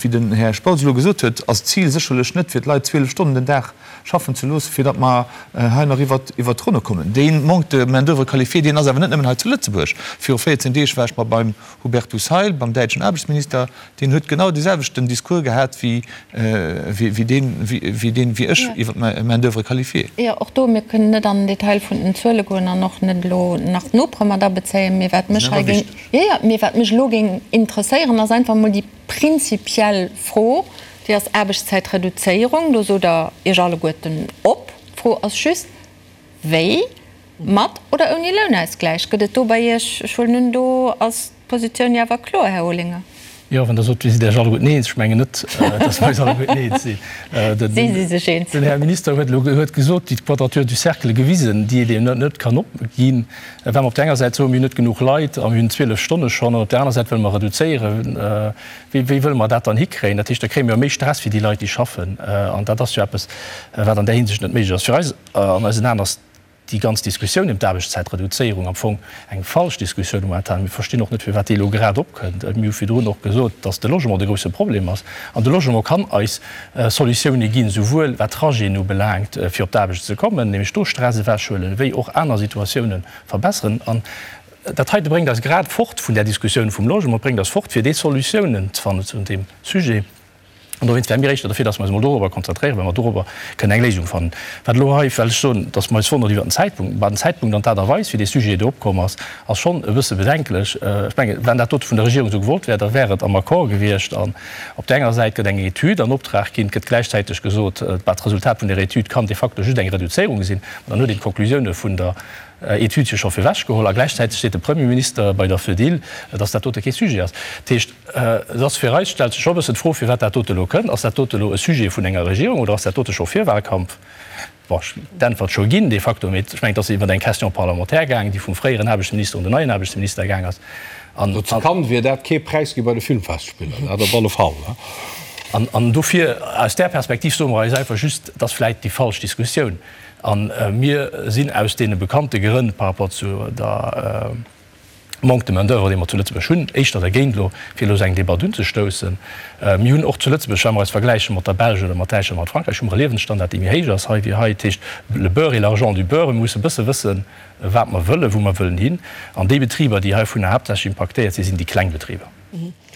wéi den Här Spautz elo gesot huet, ass d'Zil sécherlech net, fir d'Leit 12 Stonnen den Dag schaffen ze loossen, fir datt mer hei nach iwwert d'Ronne kommen. Dee Manque de main-d'oeuvre qualifiée, deen ass awer net nëmmen hei zu Lëtzebuerg. Viru 14 Deeg war ech mer beim Hubertus Heil, beim däitschen Aarbechtsminister, deen huet genau dee selwechten Discours gehat wéi deen, wéi deen, wéi ech iwwer d'Main-d'oeuvre qualifiée. Jo, och do, mir kënnen net an den Detail vun den Zuele goen an och net elo nach d'Nopere mat abezéien, mee wat mech hei géing, jo, jo, mee wat mech elo géing interesséieren, ass einfach emol déi prinzipiell Fro, déi ass Aarbechtszäitreduzéierung, do sot Der Iech alleguerten op. D'Fro ass just, Wéi? Mat oder ouni Lounausgläich? Gëtt et do bei Iech, ech huelen un, do ass d'Positioun jo awer kloer, Här Olinger? Jo, wann Der sot, Dir sidd Iech alleguerten eens, ech mengen net, dass mer eis alleguerten eens sinn. Si si sech eens. Den Här Minister huet elo huet gesot, déi Quadrature du cercle gewisen, déi et eben net kann opginn, well mer op där enger Säit soen, mir hunn net genuch Leit a mir hunn 12 Stonne schonn, an op där aner Säit wëlle mer reduzéieren. Wéi wéi wëlle mer dat dann hikréien? Dat heescht, da kréie mer jo méi Stress fir déi Leit, déi schaffen. An dat ass jo eppes, wat an där Hinsicht net méiglech ass. Fir eis an eisen Aen ass déi ganz Diskussioun ëm d'Aarbechtszäitreduzéierung am Fong eng falsch Diskussioun momentan. Mir verstinn och net, firwat déi elo grad opkënnt. Mir hu virdrun och gesot, dass de Logement de grousse Problem ass. An de Logement kann eis Solutioune ginn, souwuel wat Trajeten ubelaangt, fir op d'Aarbecht ze kommen, nämlech do Stress ewechhuelen, wéi och aner Situatioune verbesseren. An dat heite bréngt eis grad fort vun där Diskussioun vum Logement, bréngt eis fort, fir déi Solutiounen ze fannen zu deem Sujet. An dowéinst wäre mir éischter derfir, dass mer eis emol dorobber konzentréieren, well mer dorobber kënnen eng Léisung fannen. Wat elo hei, well ech soen, dass mer eis wonnert iwwert den Zäitpunkt, bah, den Zäitpunkt an d'Aart a Weis, wéi dee Sujet do opkomm ass, ass schonn e bësse bedenklech. Ech mengen, wann dat dote vun der Regierung esou gewollt wär, da wär et am Accord gewiescht. An op där enger Säit gëtt eng Etüd an Optrag ginn, et gëtt gläichzäiteg gesot, bah, d'Resultat vun där Etüd kann de facto just eng Reduzéierung sinn. Mä dann huet een d'Konklusioune vun der Etüd jo scho virwechgeholl. A gläichzäiteg seet de Premierminister bei der Fedil, dass dat dote kee Sujet ass. Dat heescht, Et ass fir eis, stellt sech scho e bëssen d'Fro, firwat dat dote elo kënnt. Ass dat dote elo e Sujet vun enger Regierung oder ass dat dote scho Virwahlkampf? Bon, ech hunn d'Äntwert scho ginn de facto, mee ech mengen, et ass iwwer eng Question parlementaire gaangen, déi vum fréieren Aarbechtsminister un den neien Aarbechtsminister gaang ass. An. Zu Cannes wier dat kee Präis gi bei de Filmfestspiller, dat op alle Fall. An dofir, aus där Perspektiv soe mer eis einfach just, et ass vläicht déi falsch Diskussioun. A mir sinn aus deene bekannte Grënn par rapport zu der, Manque de main d'oeuvre, dee mer zu Lëtzebuerg hunn, éischter dergéint elo, fir elo esou eng Debatt unzestoussen. Mir hunn och zu Lëtzebuerg, wa mer eis vergläiche mat der Belsch oder mat Däitschland, mat Frankräich, hu mer e Liewensstandard, dee méi héich ass hei wéi hei. Dat heescht, le beurre et l'argent du beurre, mir musse e bësse wëssen, wat mer wëllen, wou mer wëllen hin. An déi Betriber, déi heivunner haaptsächlech impaktéiert sinn, sinn déi kleng Betriber.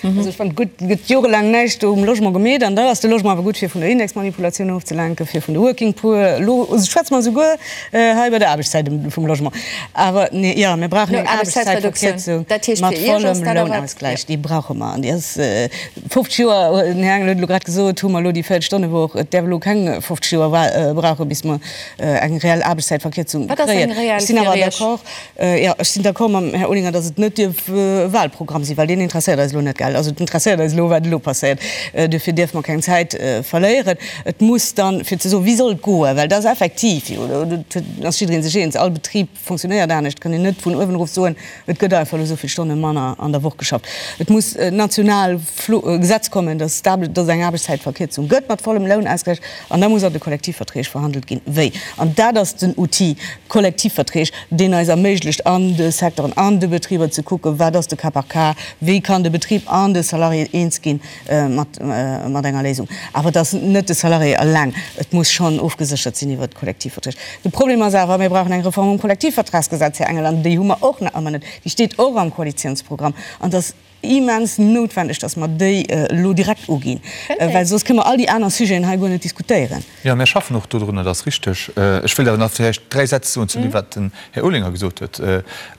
Also ech fannen, gutt, et gëtt jorelaang näischt do um Logement gemeet an da ass de Logement awer gutt fir vun der Indexmanipulatioun ofzelenken, fir vun de Working Poor. Elo schwätze mer esouguer hei iwwer der Aarbechtszäit vum Logement. Awer nee, jo, mir brauchen eng Aarbechtszäitverkierzung mat vollem Lounausgläich. Déi brauche mer an déi ass 50 Joer, den Här Engel huet elo grad gesot, hu mer elo déi 40 Stonne Woch. Et däerf elo keng 50 Joer brauchen, bis mer eng reell Aarbechtszäitverkierzung kréien. Ech sinn awer d'accord, Jo, ech sinn d'accord mam Här Olinger, datt et net dierf e Wahlprogramm sinn, well deen interesséiert eis elo net, gell. Also et interesséiert eis elo, wat elo passéiert. Duerfir dierfe mer keng Zäit verléieren. Et muss dann, fir ze soen, wéi soll et goen, well et ass effektiv jo, do ass jidderee sech eens, all Betrib fonctionnéiert anescht, et kann een net vun uewen erof soen, et gëtt einfach elo esou vill Stonne manner an der Woch geschafft. Et muss national e Gesetz kommen, datt et eng Aarbechtszäitverkierzung gëtt mat vollem Lounausgläich. An da muss an de Kollektivverträg verhandelt ginn, wéi. An dat ass den Outil Kollektivverträg, deen eis erméiglecht, an de Secteuren, an de Betriber ze kucken, wat ass de Cas par cas, wéi kann de Betrib an de Salarié eens gi mat enger Léisung. Awer et ass net de Salarié eleng, et muss schonn ofgeséchert sinn iwwert d'Kollektivverträg. De Problem ass awer, mir brauchen eng Reform um Kollektivvertragsgesetz, Här Engel, an déi hu mer och nach ëmmer net. Déi steet och am Koalitionsprogramm. An et ass Immens noutwendeg, dass mer déi elo direkt uginn, well soss kënne mer all déi aner Sujeten hei guer net diskutéieren. Jo, mir schaffen och dodrun, dat ass richteg. Ech wëilt awer nach vläicht dräi Sätz soen zu deem, wat den Här Olinger gesot huet.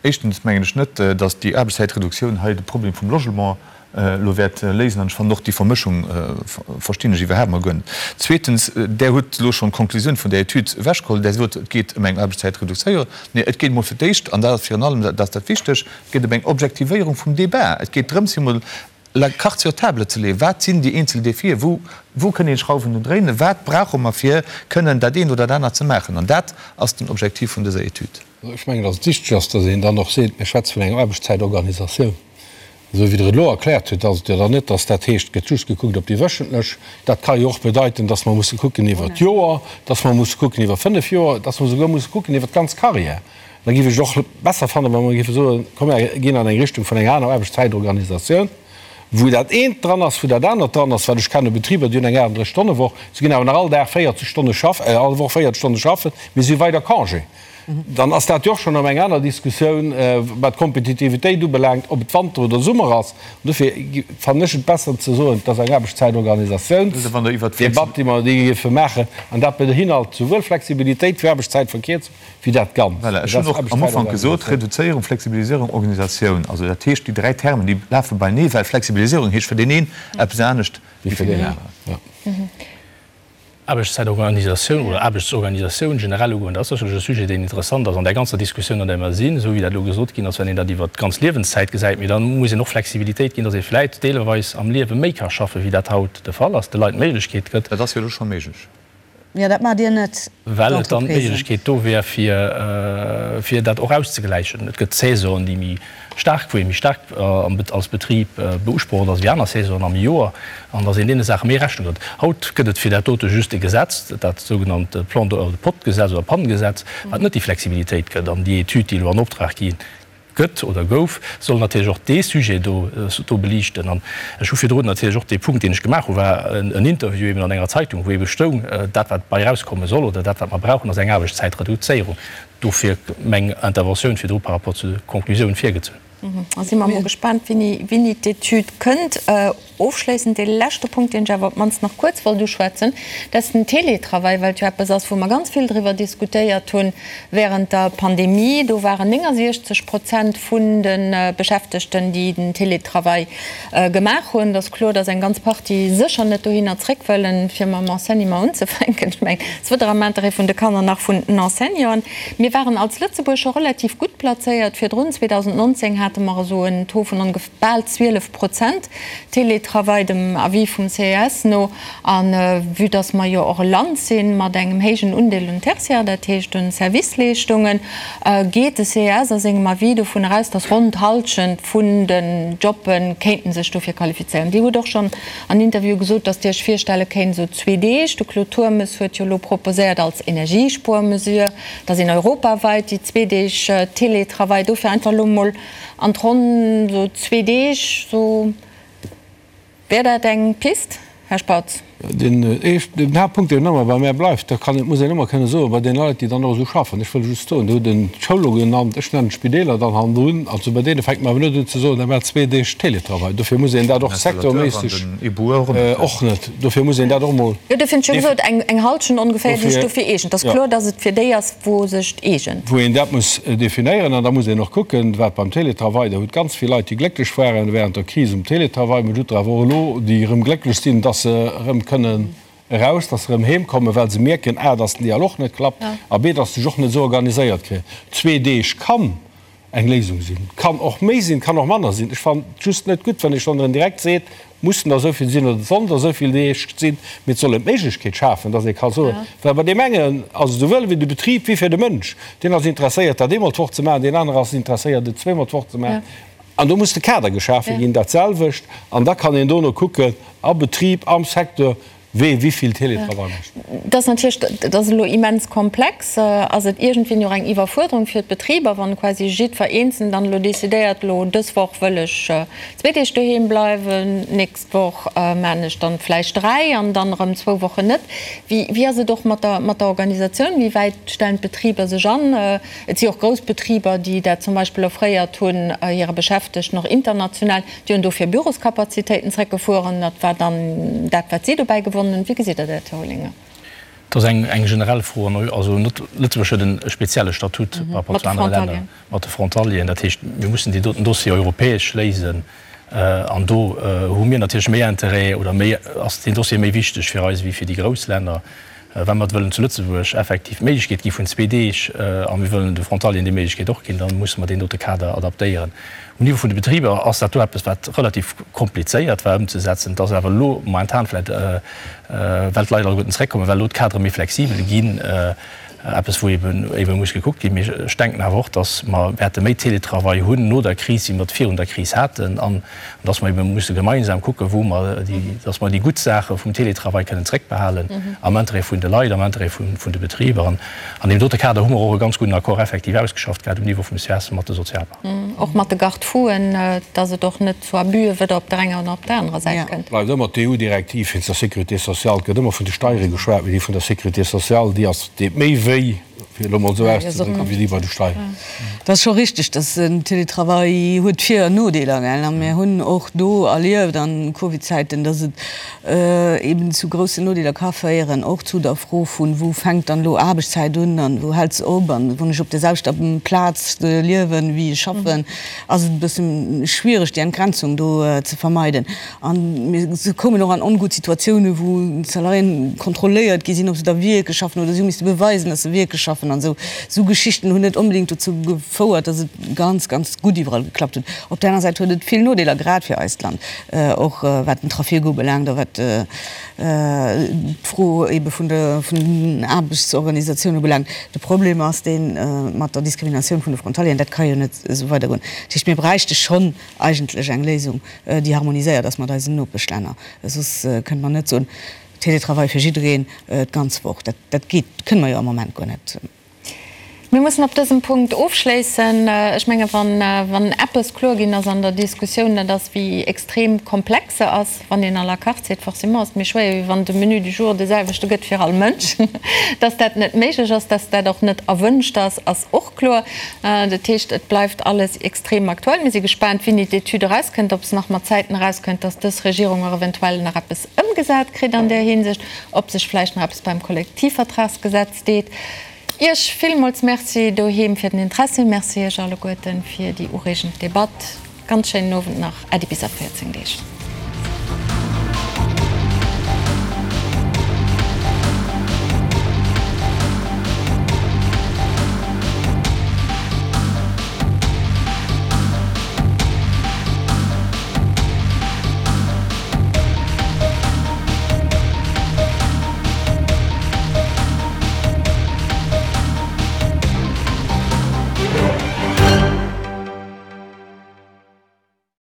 Éischtens mengen ech net, dass déi Aarbechtszäitreduktioun hei de Problem vum Logement elo wäert léisen. An ech fannen och déi Vermëschung verstinn ech iwwerhaapt mol guer net. Zweetens, Der hutt elo schonn d'Konklusioun vun där Etüd ewechgeholl. Der sot, et geet ëm eng Aarbechtszäitreduktioun. Nee, et geet emol fir d'éischt, an dat ass virun allem dat ass dat Wichteg, Et geet ëm eng Objektivéierung vum Débat. Et geet drëms, fir emol la carte sur table ze leeën. Wat sinn déi eenzel Defien? Wou, wou kënn een Schrauwen un dréinen? Wat brauche mer, fir kënnen dat eent oder dat anert ze maachen? An dat ass den Objektiv vun dëser Etüd. Ech mengen, datt et wichteg ass, datt een dann och seet, mir schwätze vun enger Aarbechtszäitorganisatioun. Esou wéi Der et elo erkläert hutt, ass et jo dann net, datt dat heescht, et gëtt just gekuckt op déi wöchentlech. Dat ka jo och bedeiten, datt mer musse kucken iwwer d'Joer, datt mer musse kucken iwwer fënnef Joer, datt mer souguer musse kucken iwwer d'ganz Carrière. Da géif ech et och besser fannen, wa mer géife soen, komm mer ginn an eng Richtung vun enger aner Aarbechtszäitorganisatioun, wou dat eent dran ass, wou dat anert dran ass, well ech kenne Betriber, déi hunn eng 38-Stonne-Woch, se ginn awer nach all Dag 40 Stonne schaffen, all Woch 40 Stonne schaffen, mee si hu weider Congé. Dann ass dat jo och schonn erëm eng aner Diskussioun, wat d'Kompetitivitéit ubelaangt, ob et Wanter oder Summer ass. An dofir fannen ech et besser ze soen, et ass eng Aarbechtszäitorganisatiounsdebatt, déi mer géife maachen, an dat beinhalt souwuel Flexibilitéit wéi Aarbechtszäitverkierzung, wéi dat Ganzt. Voilà, ech hunn och am Ufank gesot, Reduzéierung, Flexibilisierung, Organisatioun. Also dat heescht, déi dräi Termen, déi lafe beinee, well Flexibilisierung heescht fir deen een eppes anescht wéi fir deen aneren. Aarbechtszäitorganisatioun oder Aarbechtsorganisatioun generell ugoen, dat ass sécherlech e Sujet, deen interessant ass an där ganzer Diskussioun, an där mer sinn, esou wéi dat elo gesot ginn ass, wann een dat iwwert d'ganz Liewenszäit gesäit. Mee da muss een och Flexibilitéit ginn, datt ee vläicht deelweis am Liewe méi ka schaffen, wéi dat haut de Fall ass, de Leit d'Méiglechkeet gëtt. Dat ass jo elo scho méiglech. Jo, dat maacht Dir net, Well et dann d'Méiglechkeet do wär, fir, fir dat och auszegläichen. Et gëtt Saisonen, déi méi staark, wou ee méi staark als Betrib beusprocht ass wéi aner Saisonen am Joer, an datt een deene Saache méi Rechnung dréit. Haut gëtt et fir dat dote just e Gesetz, dat sougenannt Plan de, POT-Gesetz oder PAN-Gesetz, wat net déi Flexibilitéit gëtt. An déi Etüd, déi elo an Optrag gi gëtt oder gouf, soll natierlech och dee Sujet do do beliichten. An ech hu virdrun natierlech och dee Punkt, deen ech gemaach hu, war en Interview eben an enger Zeitung, wou ebe stoung, dat wat bei erauskomme soll oder dat wat mer brauchen, ass eng Aarbechtszäitreduzéierung. Dofir meng Interventioun virdru par rapport zu de Konklusiounen virgezunn. Da si mer emol gespaant, wéini wéini d'Etüd kënnt. Ofschléissend dee leschte Punkt, deen ech awer op d'mannst nach kuerz wollt uschwätzen, dat ass den Télétravail, well et jo eppes ass, wou mer ganz vill driwwer diskutéiert hu während der Pandemie. Do waren 69 Prozent vun de Beschäftegten, déi den Télétravail gemaach hunn. Et ass kloer, dass eng ganz Partie sécher net dohinner zréck wëllen, fir mam Enseignement unzefänken. Ech mengen, et ass weder am Interêt vun de Kanner nach vun den Enseignanten. Mir waren als Lëtzebuerg scho relativ gutt plazéiert virdrun. 2019 hate mer esou en Taux vun ongef. Bal 12 Prozent Télétravail, dem Avis vum CES no. A vue dass mer jo och e Land si mat engem héijen Undeel un Tertiaire, dat heescht un Serviceleeschtungen, geet de CES a sengem Avis dovun eraus, dass ronn d'Hallschent vun den Jobbe kéinten sech dofir qualifizéieren. Dir hutt och schonn an Interview gesot, dass Dir Iech virstelle kéint, esou zwee Deeg, de Claude Turmes huet jo elo proposéiert als Energiespuermesure, dass een europaweit déi zwee Deeg Télétravail dofir einfach elo emol An d'Ronn sou zwee Deeg, sou. Wär dat eng Pist, Här Spautz? Den éischten, den Haaptpunkt, deen ëmmer bei mär bleift, da kann, muss een ëmmer kënne soen, bei deene Leit, déi dann och esou schaffen, ech wëll just soen, Dir hutt en d'Schoul elo genannt, ech nennen d'Spideeler dann hannendrun, also bei deene fänkt mer awer net un ze soen, da maacht zwee Deeg Télétravail. Dofir muss een dat och sektorméisseg och net, dofir muss een dat och emol. Jo, dofir hunn ech jo gesot, eng Hallschent ongeféier, déi sech dofir eegent. Et ass kloer, datt et fir déi ass, wou sech eegent. Wou een dat muss definéieren. An da muss een och kucken, wat beim Télétravail, Der hutt ganz vill Leit, déi glécklech waren während der Kris um Télétravail, mä et hutt der awer och elo, déi erëm glécklech sinn, dass se erëm kënnen eraus, dass se erëm heem kommen, well se mierken, a, dass den Dialog net klappt a b, dass se sech och net esou organiséiert kréien. Zwee Deeg kann eng Léisung sinn. Kann och méi sinn, kann och manner sinn. Ech fannen et just net gutt, wann ee schonn erëm direkt seet, mussen der esou vill sinn oder et sollen der esou vill Deeg sinn, mee et soll een d'Méiglechkeet schafen, dass ee ka soen, well bei deem engen ass et esouwuel fir de Betrib wéi fir de Mënsch, deen ass interesséiert, dat eemol d'Woch ze maachen, deen anere ass interesséiert, et zweemol d'Woch ze maachen. An do muss de Kader geschafe ginn, dat selwecht, an da kann een dono kucken, a Betrib, am Secteur, Wee wéivill Télétravail mécht. Dat ass natierlech, dat ass elo immens komplex. Ass et iergendwéini och eng Iwwerfuerderung fir d'Betriber, wann quasi jiddwer Eenzelnen dann elo decidéiert, elo dës Woch wëll ech zwee Deeg doheem bleiwen, d'nächst Woch maan ech dann vläicht dräi an dann erëm zwou Wochen net. Wéi, wéi ass et och mat der, mat der Organisatioun? Wéi wäit stellen d'Betriber sech an? Et si och grouss Betriber, déi dat zum Beispill offréiert hunn hire Beschäftegten, och international. Déi hunn dofir Büroskapazitéiten zréckgefueren. Dat war dann dat, wat si dobäi gewonnen hunn. Wéi gesitt Der dat, Här Olinger? Dat ass eng generell Fro. Also Lëtzebuerg huet e spezielle Statut par rapport zu anere Länner mat de Frontalieren. Dat heescht, mir mussen deen doten Dossier europäesch léisen. An do hu mir natierlech méi Interêt oder méi, ass deen Dossier méi wichteg fir eis wéi fir déi grouss Länner. Wa mer wëllen zu Lëtzebuerg effektiv d'Méiglechkeet gi vun zwee Deeg a mir wëllen de Frontalieren déi Méiglechkeet och ginn, da musse mer deen dote Kader adaptéieren. Um Niveau vun de Betriber ass dat do eppes, wat relativ komplizéiert war ëmzesetzen. Et ass awer elo momentan vläicht, well d'Leit alleguerten zeréckkommen, well elo d'Kadere méi flexibel ginn. Eppes, wou ebe muss gekuckt ginn. Mee ech denken awer och, datt mer wäerte méi Télétravail hunn no der Kris, wéi mer et virun der Kris haten, an datt mer ebe musse gemeinsam kucken, wou mer déi, datt mer déi gutt Saache vum Télétravail kënnen zréckbehalen am Interêt vun de Leit, am Interêt vun de Betriber. An an deem dote Kader hu mer och e ganz gudden Accord effektiv ausgeschafft gehat um Niveau vum ces mat de Sozialpartner. Och mat de Garde-fouen, datt et och net zu Abüe weder op der enger noch op der anerer Säit kënnt. Bleift ëmmer d'EU-Direktiv wéinst der Sécurité sociale. Et gëtt ëmmer vun de Steiere geschwat, mee déi vun der Sécurité sociale, déi ass, deet méi wéi, fir elo mol esou auszedrécken, wéi déi bei de Steieren. Et ass scho richteg, dass den Télétravail huet Vir an Nodeeler, gell. A mir hunn och do erlieft an Covid-Zäiten, dass et eben zu groussen Nodeeler ka féieren, och zu der Fro vun, wou fänkt dann elo Aarbechtszäit un an wou hält se op an wann ech op der selwechter Plaz liewen, wéi ech schaffen. Ass et e bësse schwiereg, déi Entgrenzung do ze vermeiden. A mir koumen och an ongutt Situatiounen, wou d'Salariéen kontrolléiert gi sinn, ob se da wierklech schaffen oder si hu misste beweisen, datt se wierklech schaffen an esou. Esou Geschichten hunn net onbedéngt dozou gefouert, datt et ganz, ganz gutt iwwerall geklappt huet. Op där aner Säit huet et vill Nodeeler, grad fir eist Land, och wat den Trafic ubelaangt a wat d'Fro ebe vun der vun den Aarbechtsorganisatioun ubelaangt. De Problem ass dee mat der Diskriminatioun vun de Frontalieren. Dat ka jo net esou weidergoen. Dat heescht, mir bräichte schonn eigentlech eng Léisung, déi harmoniséiert ass mat eisen Nopeschlänner. Soss kënne mer net soen, Télétravail fir jiddereen d'ganz Woch. Dat dat geet, kënne mer jo am Moment guer net. Mir mussen op dësem Punkt ofschléissen. Ech menge wann eppes kloer ginn ass an der Diskussioun, dat ass wéi extrem komplex se ass. Wann een à la carte seet, forcément ass et méi schwéier, wéi wann de Menu du jour de selwechte gëtt fir all Mënsch. Dass dat net méiglech ass, dass dat och net erwünscht ass, ass och kloer. Dat heescht, et bleift alles extrem aktuell. Mir si gespaant, wéini d'Etüd erauskënnt, ob se nach mat Zäiten erauskënnt, dass dës Regierung och eventuell nach eppes ëmgesat kritt an där Hinsicht, ob sech vläicht nach eppes beim Kollektivvertragsgesetz deet. Iech villmools Merci doheem fir den Interessi. Merci Iech alleguerten fir déi ureegend Debatt. Ganz schéinen Owend nach. Äddi bis a 14 Deeg.